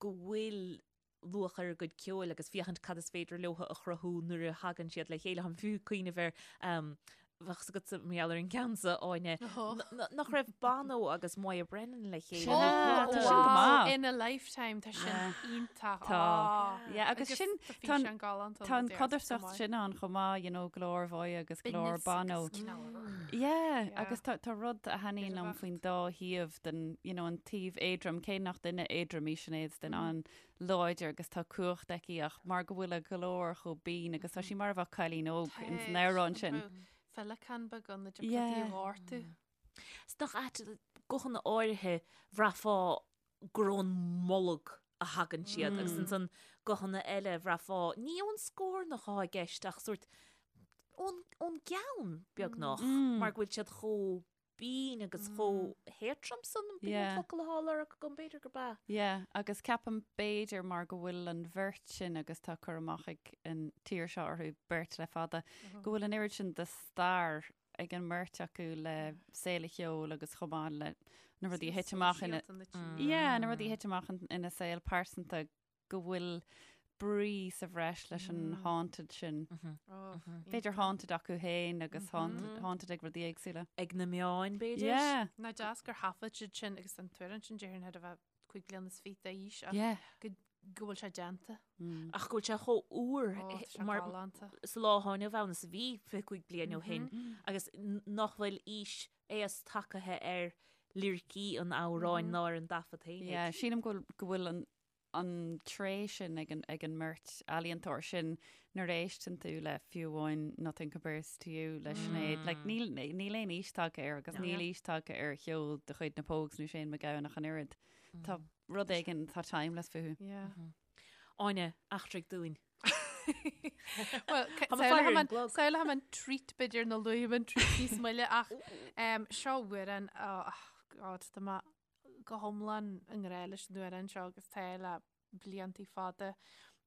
go bhfuil luach ar a gcuid ceoil agus féachaint cad is féidir leo a chruthú nuair a thagann siad le chéile. Táim fiú ag cuimhneamh ar bheadh fhios agatsa mar gheall ar an gceann seo, Áine, nach raibh Bono agus Moya Brennan le chéile.
Sea, tá sin go maith.
In a Lifetime, tá sin iontach.
Tá. Yeah, agus sin,
tá an
tá an codarsnacht sin ann chomh maith, you know, glór Mhoya agus glór Bono. Yeah, agus tá tá rud a thaitníonn liom faoin dá thaobh den, you know, an taobh éadrom, cé nach duine éadrom í Sinéad, is duine an-láidir agus tá cumhacht aici ach mar go bhfuil a glór chomh binn agus tá sí mar a bheadh cailín óg ins an amhrán sin.
Féileacán beag ann a dtiocfadh di a ghortú.
Is nach ait guthanna áirithe bhraithfeá gur ón mbolg a thagann siad agus ansan guthanna eile bhraithfeá ní ón scornach atá i gceist ach sórt ón ón gceann beagnach mar go bhfuil siad chomh binn agus chomh héadrom san, b'in an focal atá á lorg agam, b'fhéidir gurb ea.
Yeah, agus ceapaim b'fhéidir mar go bhfuil an bheirt sin agus tá cur amach ag an tír seo orthu beirt le fada, go bhfuil an oiread sin de stair ag an mbeirt acu le saol an cheoil agus chomh maith le na rudaí a thit amach ina Yeah, na rudaí a thit amach ina saol pearsanta go bhfuil brí sa bhreis leis an haunted sin. B'fhéidir haunted acu féin agus haunted ag rudaí éagsúla.
Ag na meáin, b'fhéidir?
Yeah.
Nach deas gur thaifead siad sin agus an t-amhrán sin déarfainn thar a bheith 25 bliana d'aois ach go go bhfuil sé déanta.
Ach go bhfuil sé chomh úr
Ó, tá sé
mar
galánta.
sa lá atá inniu ann is a bhí 25 bliain ó shin agus nach bhfuil aois aos tagtha ar liricí an amhráin ná ar an dtaifead féinig.
Yeah, sílim go bhfuil go bhfuil an an tréith sin ag an, ag an mbeirt ealaíontóir sin nuair a éisteann tú le fiú amháin Nothing Compares to You le Sinéad, like, níl, níl aon aois tagtha air agus níl aois tagtha ar cheol de chuid na Pogues nó Shane MacGowan ach an oiread. Tá rud éigin, tá timeless fúthu.
Yeah.
Áine, eachtraigh dúinn.
Well, samhlóidh mé an treat b'fhéidir nó luafaidh mé an treat níos moille ach seo amhrán, oh God, tá mé go hiomlán i ngrá leis an amhrán seo agus tá le bliantaí fada.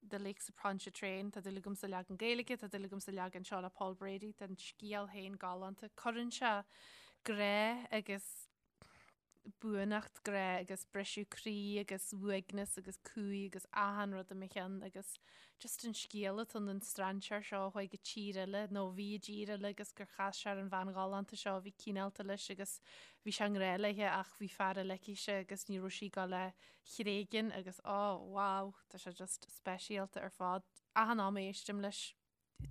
The Lakes of Pontchartrain, tá dúil agam sa leagan Gaeilge, tá dúil agam sa leagan seo le Paul Brady, tá an scéal féin galánta. Cuireann sé grá agus buannacht grá agus briseadh croí agus uaigneas agus cumhaidh agus achan rud i mo cheann agus just an scéal atá ann an strainséir seo a chuaigh go tír eile nó a bhí i dtír eile agus gur chas sé ar an bhean ghalánta seo a bhí cineálta leis agus bhí sé i ngrá léithe ach bhí fear eile aici agus ní raibh sí ag dul é a thréigean agus oh wow tá sé just speisialta ar fad. Achan am a éistim leis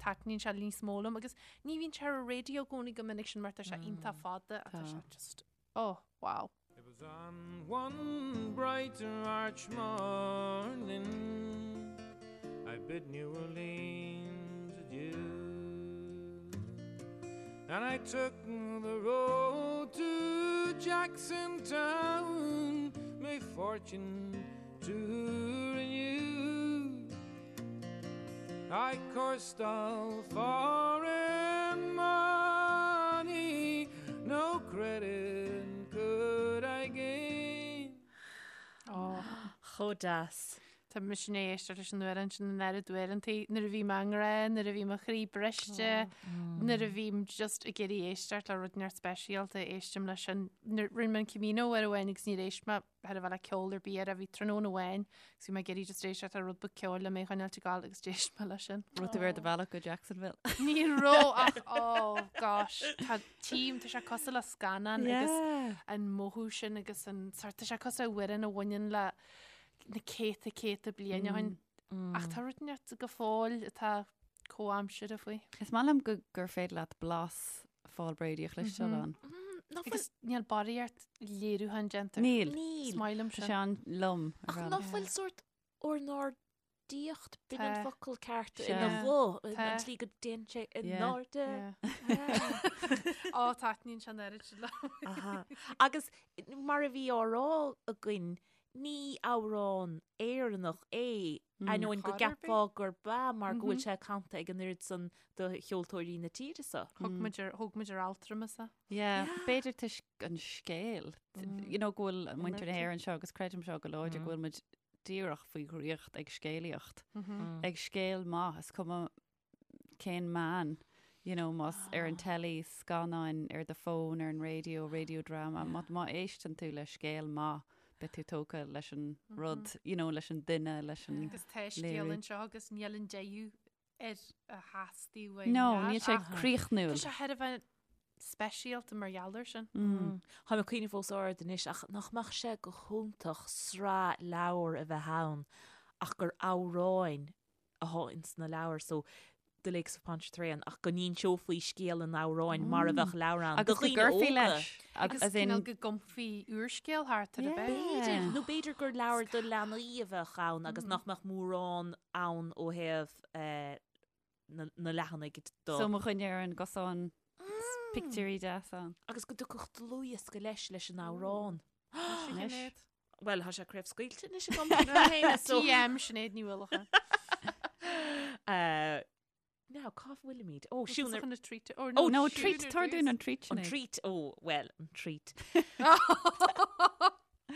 taitníonn sé níos mó liom agus ní bhíonn sé ar an raidió i gcónaí go minic sin mar tá sé iontach fada ach tá sé just oh wow.
It was on one bright March morning I bid New Orleans adieu And I took the road to Jackson Town My fortune to renew I cursed all foreign money, no credit could I gain.
Chomh deas.
Tá mise i ndiaidh éisteacht leis an amhrán sin an oiread uaireantaí nuair a bhí mé i ngrá, nuair a bhí mo chroí briste, nuair a bhím just ag iarraidh éisteacht le rud inteacht speisialta, éistim leis sin. Nuair rinne mé an Camino uair amháin agus níor éist mé thar a bheith le ceol ar bith air, bhí tráthnóna amháin agus bhí mé ag iarraidh just éisteacht le rud beag ceoil le mé a choinneáilt ag gabháil agus d'éist mé leis sin.
Raibh tú ar do bhealach go Jacksonville?
Ní raibh ach oh gosh, tá tím, tá sé cosúil le scannán agus an mothú sin agus an sort, tá sé cosúil le amhrán a bhaineann le na céadta céadta bliain ó shin. Ach tá rud inteacht go fóill atá comhaimseartha faoi.
Is maith liom go gur féidir leat blas Phaul Brady a chloisteáil ann.
Nach bhfuil
Agus níl barraíocht léiriúcháin déanta.
Níl.
Níl.
Is maith liom
Tá
sin.
sé an-lom ar
Ach
bhealach.
nach bhfuil sórt ornáidíocht, b'in an
Tá.
focal ceart,
Sea.
ina ghuth, an
Tá.
tslí go dtéann sé in
Yeah.
airde.
Yeah. Ó, taitníonn sé an oiread sin liom.
Aha. Agus mar a bhí á rá againn, ní amhrán Éireannach é, ainneoin go
Chor ar bith.
gceapfá gurb ea mar go bhfuil sé canta ag an oiread san de cheoltóirí na tíre seo.
Thug muid ar, thóg muid ar altramas é.
Yeah, b'fhéidir toisc an scéal. You know, go bhfuil muintir na hÉireann seo agus creidim seo go láidir go bhfuil muid díreach faoi dhraíocht ag scéalaíocht. Ag scéal maith, is cuma cén meán, you know, más ar an telly, scannáin, ar do fón, ar an raidió, radio drama, má, má éisteann tú le scéal maith, beidh tú tógtha leis an rud, you know, leis an duine, leis an
Agus tá scéal
léiriú.
anseo agus níl an deireadh ar a theastaigh uainn.
No,
leat,
níl sé
ach
críochnúil.
Tá sé thar a bheith speisialta mar gheall air sin.
Tá mé ag cuimhneamh os ard anois ach nach mbeadh sé go hiontach sraith leabhar a bheith ann ach gur amhráin atá ins na leabhair so The Lakes of Pontchartrain ach go n-inseofaí scéal an amhráin mar a bheadh leabhar ann do
Agus go
dhaoine
gcuirfí
óga.
leis.
Agus
As in,
cineál go gcumfaí úrscéal thart ar a
Yeah.
bheith.
B'fhéidir, nó b'fhéidir gur leabhar do leanaí a bheadh ann agus nach mbeadh mórán ann ó thaobh eh, na, na leathanaigh do.
So mo dhuine ar an gcosán pictiúirí deas ann.
Agus go dtiocfadh dlúthdhiosca leis leis an amhrán.
Anois.
Bhuel, tá sé craobhscaoilte anois agam féin, so.
TM Sinéad Ní Uallacháin.
Uh, now, cá bhfuilimid? Ó, Siún ar...
Chun na treat. Oh,
Oh,
No,
Siún
treat,
ar
tabhair
dtús.
dúinn an treat,
An
Sinéad.
treat, ó, well, an treat.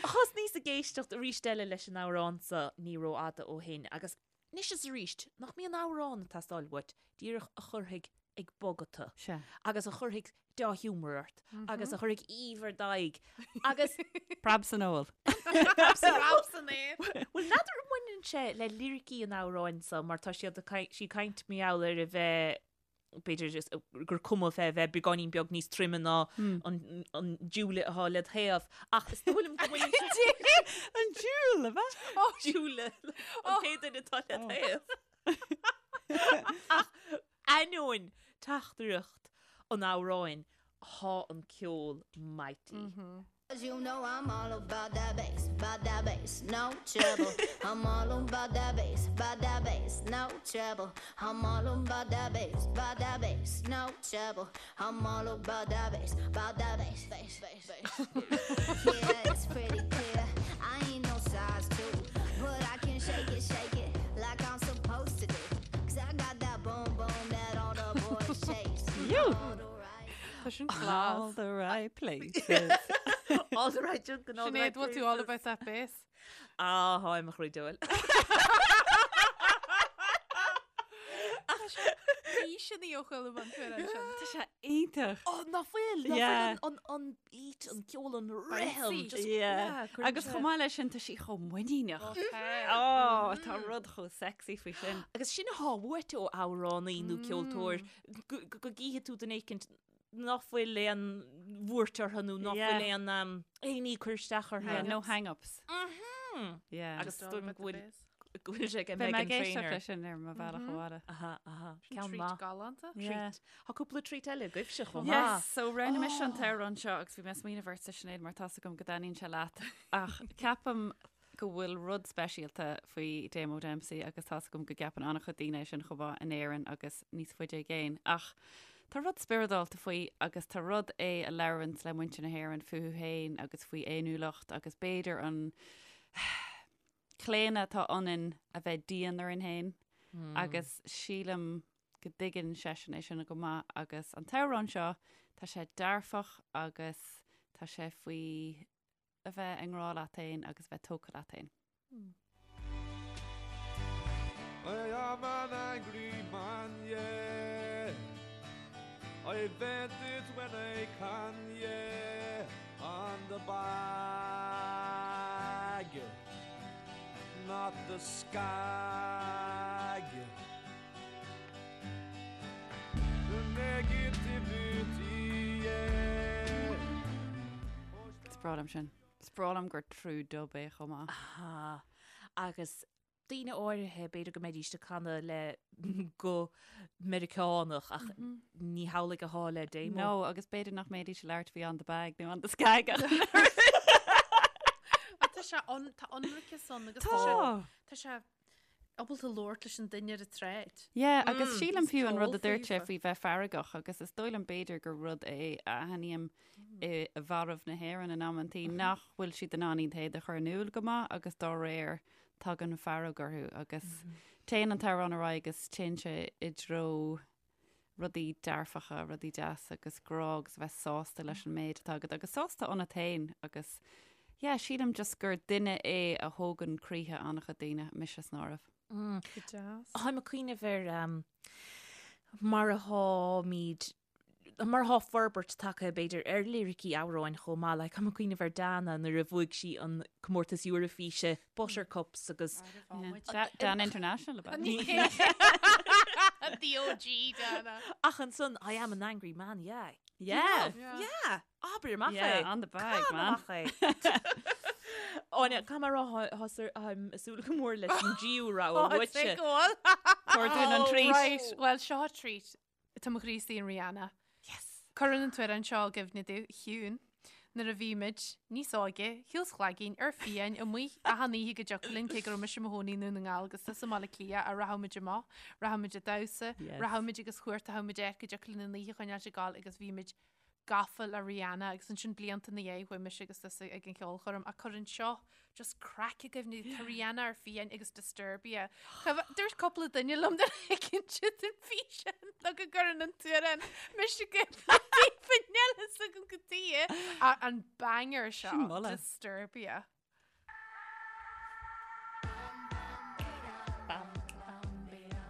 Thosnaíos ag éisteacht arís eile leis an amhrán seo ní rófhada ó shin agus anois is arís, nach mbíonn amhrán ag teastáil uait, díreach a chuirfidh ag bogadh tú.
Sea.
Agus a chuirfidh dea-ghiúmar ort. Agus a chuirfidh aoibh ar d'aghaidh. Agus.
Preab san fheoil.
Preab san aer.
Bhuel, n'fheadar an mbaineann sé le liricí an amhráin seo mar tá siad ag caint, sí ag caint mar gheall ar a bheith, b'fhéidir just gur cuma fé bheith beagáinín beag níos troime ná an, an diúle atá led thaobh. Ach is dóigh liom go mbaineann sé.
An diúl, ab ea?
Diúle, an t-aon duine atá led thaobh. Ach ainneoin teachtaireacht an amhráin, tá an ceol mighty.
You know I'm all about that bass, about that bass, no treble. I'm all about that bass, about that bass, no treble. I'm all about that bass, about that bass, no treble. I'm all about that bass, about that bass, bass, bass, bass. Yeah, it's pretty clear. I ain't no size 2, but I can shake it, shake it. like I'm supposed to do. Cause I got that boom boom that all the boys chase.
You.
Tá sin class.
All the right places.
All the right junk and all the
Sinéad,
right
bhfuil tú all about that bass?
Ah, tháim a chroí diabhail.
Bhí sin í ó chuile bhain tú ar sin.
Tá sé iontach.
Ó, nach bhfuil, nach
Yeah.
bhfuil an, an, an beat, an ceol, an rithim.
Bouncy.
just-
Yeah.
yeah, cuireann
Agus
sé-
chomh maith leis sin tá sí chomh muiníneach.
Okay.
Ó, tá rud chomh sexy faoi sin.
Agus sin athá uait ó amhránaí nó ceoltóir go go gcífidh tú duine éicint nach bhfuil aon bhuairt orthu nó nach
Yeah.
bhfuil aon um, aon ní cur isteach orthu.
Yeah, no hang-ups.
Mhm.
Yeah.
Agus
Just all
dúim
about the
go bhfuil
bass.
go bhfuil sé ag
Beidh mé
Meghan
ag éisteacht
Trainor.
leis sin ar mo bhealach abhaile.
Aha, aha.
Sin
Ceann
treat
maith.
galánta.
Yeah.
Treat. Tá cúpla treat eile agaibhse chomh maith.
Yes, so roghnaigh mise an t-amhrán seo agus bhí mé ag smaoineamh ortsa Sinéad mar tá's agam go dtaitníonn sé leat ach ceapaim go bhfuil rud speisialta faoi Damo Dempsey agus tá's agam go gceapann an-chuid daoine é sin chomh maith in Éirinn agus níos faide i gcéin ach tá rud spioradálta faoi agus tá rud é a labhranns le muintir na hÉireann fúthu féin agus faoi fhéiniúlacht agus b'fhéidir an claonadh atá ionainn a bheith dian orainn féin agus sílim go dtuigeann seisean é sin go maith agus an t-amhrán seo tá sé dearfach agus tá sé faoi a bheith i ngrá leat féin agus bheith tógtha leat féin.
I am an angry man, yeah. I vent it when I can, yeah. On the bag, not the skag. The negativity, yeah.
Is breá liom sin. Is breá liom gur true dub é chomh maith.
Aha. Agus daoine áirithe b'fhéidir go mbeidís ag canadh le guth Meiriceánach ach ní hamhlaidh athá le Damo.
No, agus b'fhéidir nach mbeidís ag labhairt faoi on the bag nó on the skag ach
Ach tá sé an, tá ionraiceas ann agus tá sé,
Tá!
tá sé ábalta labhairt leis an duine ar an tsráid.
Yeah, agus sílim
is
fiú an rud a
ceol
dúirt sé
faofa.
faoi bheith feargach agus is dóigh liom b'fhéidir gur rud é a aithním i bhfearaibh na hÉireann in amantaí nach bhfuil siad in ann iad féin a chur in iúl go maith agus dá réir tagann fearg orthu agus téann an t-amhrán ar aghaidh agus téann sé i dtreo rudaí dearfacha, rudaí deasa agus grá agus a bheith sásta leis an méid atá agat agus sásta ionat féin agus yeah, sílim just gur duine é a thógann croíthe an-chuid daoine, mise san áireamh.
Go deas.
Táim ag cuimhneamh ar mar atháimid mar atá forbairt tagtha b'fhéidir ar liricí amhráin chomh maith, like táim ag cuimhneamh ar Dana nuair a bhuaigh sí an comórtas Eoraifíse Buttercups agus
Dana International ab ea?
The OG Dana.
Ach ansan I am an angry man, yeah.
Yeah.
Yeah. Abair amach é.
Yeah, on the bag,
Can
man.
amach é. Áine, caithfidh mé a rá táim ag súil go mór leis an dtríú rogha uaitse.
Tabhair dúinn an treat.
Right, well seo treat. Tá mo chroí istigh in Rihanna.
Yes!
Cuireann an t-amhrán seo i gcuimhne domh, a Shiún, nuair a bhí muid níos óige, shiúl 's chlaigín, ar fiáin, amuigh achan oíche go dtiocfadh linn, cé go raibh mise i mo chónaí i nDún na nGall agus tusa i mBaile Átha Cliath, ach rachadh muid amach, rachadh muid ag damhsa,
Yes.
rachadh muid agus chuartaitheadh muid áit go dtiocfadh linn an oíche a choinneáilt ag gabháil agus bhí muid gafa le Rihanna agus ansin blianta ina dhiaidh chuaigh mise agus tusa ag an cheolchoirm ach cuireann seo just craic i gcuimhne tá Rihanna ar fiáin agus Disturbia. Dúirt cúpla duine liom gur thuigeann siad an físeán nó go gcuireann an t-amhrán mise i gcuimhne daofa níl fhios agam cad chuige an banger seo
Sin moladh.
Disturbia.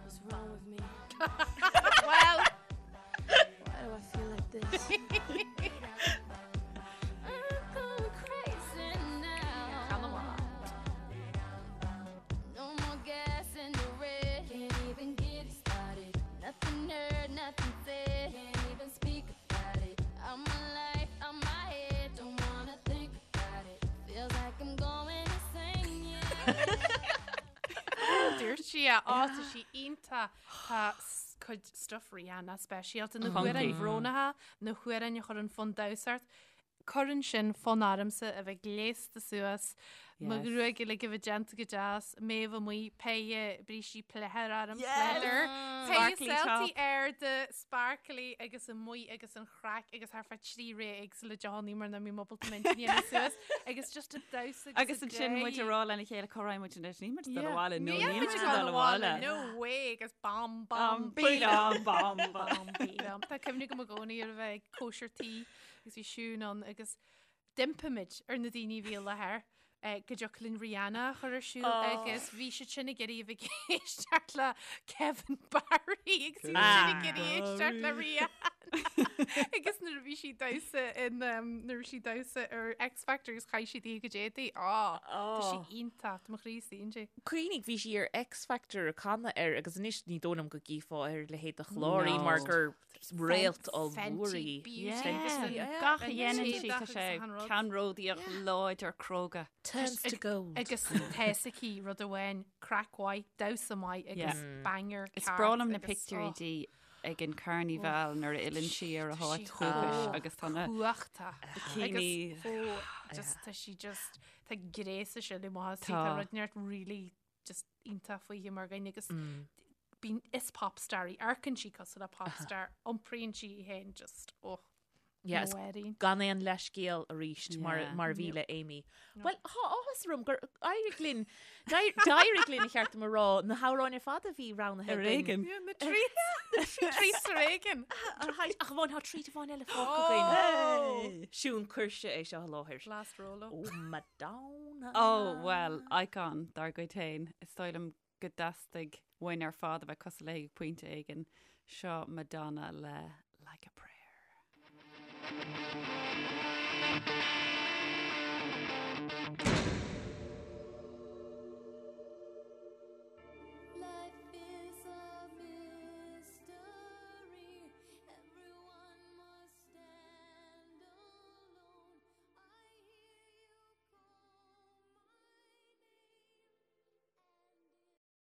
What's wrong with me?
Well,
Why do I feel like this? I'm going crazy now.
Ceann amach.
No more gas in the red. Can't even get it started. Nothing heard, nothing said. Can't even speak about it. I'm my life, I'm my head. Don't wanna think about it. Feels like I'm going insane. Yeah.
Dúirt sí é á tá sí iontach tá s- cuid stuff Rihanna speisialta na
Funky.
hamhráin bhrónacha na hamhráin a chuireann fonn damhsa ort. Cuireann sin fonn ormsa a bheith gléasta suas mo
Yes.
ghruaig uilig a bheith déanta go deas, mé a bheith amuigh péire brístí pleidhir orm pleather. Sparkly top. Arda sparkly agus amuigh agus an chraic agus thar feadh 3 ré éagsúla deonaí mar nach mbím ábalta m'intinn a dhéanamh suas agus just ag damhsa
agus Agus ansin muid ag rá lena chéile cá raghaidh muid anois, níl muid ag dul abhaile, no níl muid ag dul abhaile.
No way agus bam bam
bam bam bam
bam. Tá cuimhne agam i gcónaí ar a bheith ag cóisir tí agus bhí Siún ann agus D'impigh muid ar na daoine a bhí i láthair go dtiocfadh linn Rihanna a chur ar siúl agus bhí siad sin ag iarraidh a bheith ag éisteacht le Kevin Barry agus bhí siad sin ag iarraidh éisteacht le Rihanna agus nuair a bhí sí damhsa in nuair a bhí sí damhsa ar X Factor agus chaith sí di a cuid éadaí. Á tá sí iontach, tá mo chroí istigh inti.
Cuimhnigh, bhí sí ar X Factor ag canadh air agus anois ní dóigh liom go gcífeá ar a leithéid de chlár í mar gur réalt ollmhór í.
Gach a dhéanann sí tá sé ceannródaíoch láidir cróga.
Turns to gold.
Agus tá a fhios aici rud amháin, craic mhaith, damhsa maith agus banger
Is breá liom na pictiúirí di ag an carnival nuair a fhilleann sí ar a háit dhúchais agus tá na
cumhachtach.
bikini.
Agus just tá sí just tá gréas aici le maith tá rud inteacht really just iontach fúithi mar dhuine agus bíonn is pop star í, amharcann sí cosúil le pop star, iompraíonn sí í féin just oh,
Yes,
no worry.
gan aon leithscéal arís mar,
Yeah.
mar a bhí le Amy. Well, tá áthas orm gur éirigh linn, d'éirigh linn ba cheart dom a rá, na hamhráin ar fad a bhí roghnaithe
Ar
againn.
éigean.
Yeah, na treats, na treats ar éigean.
Ach amháin tá treat amháin eile fágtha againn. Siún cuirse é seo i láthair.
Last Rolo.
Oh, Madonna.
Oh, well, icon dár gcuid féin. Is dóigh liom go dteastaigh uainn ar fad a bheith cosúil léi ag pointe éigin. Seo Madonna le Like a Prayer.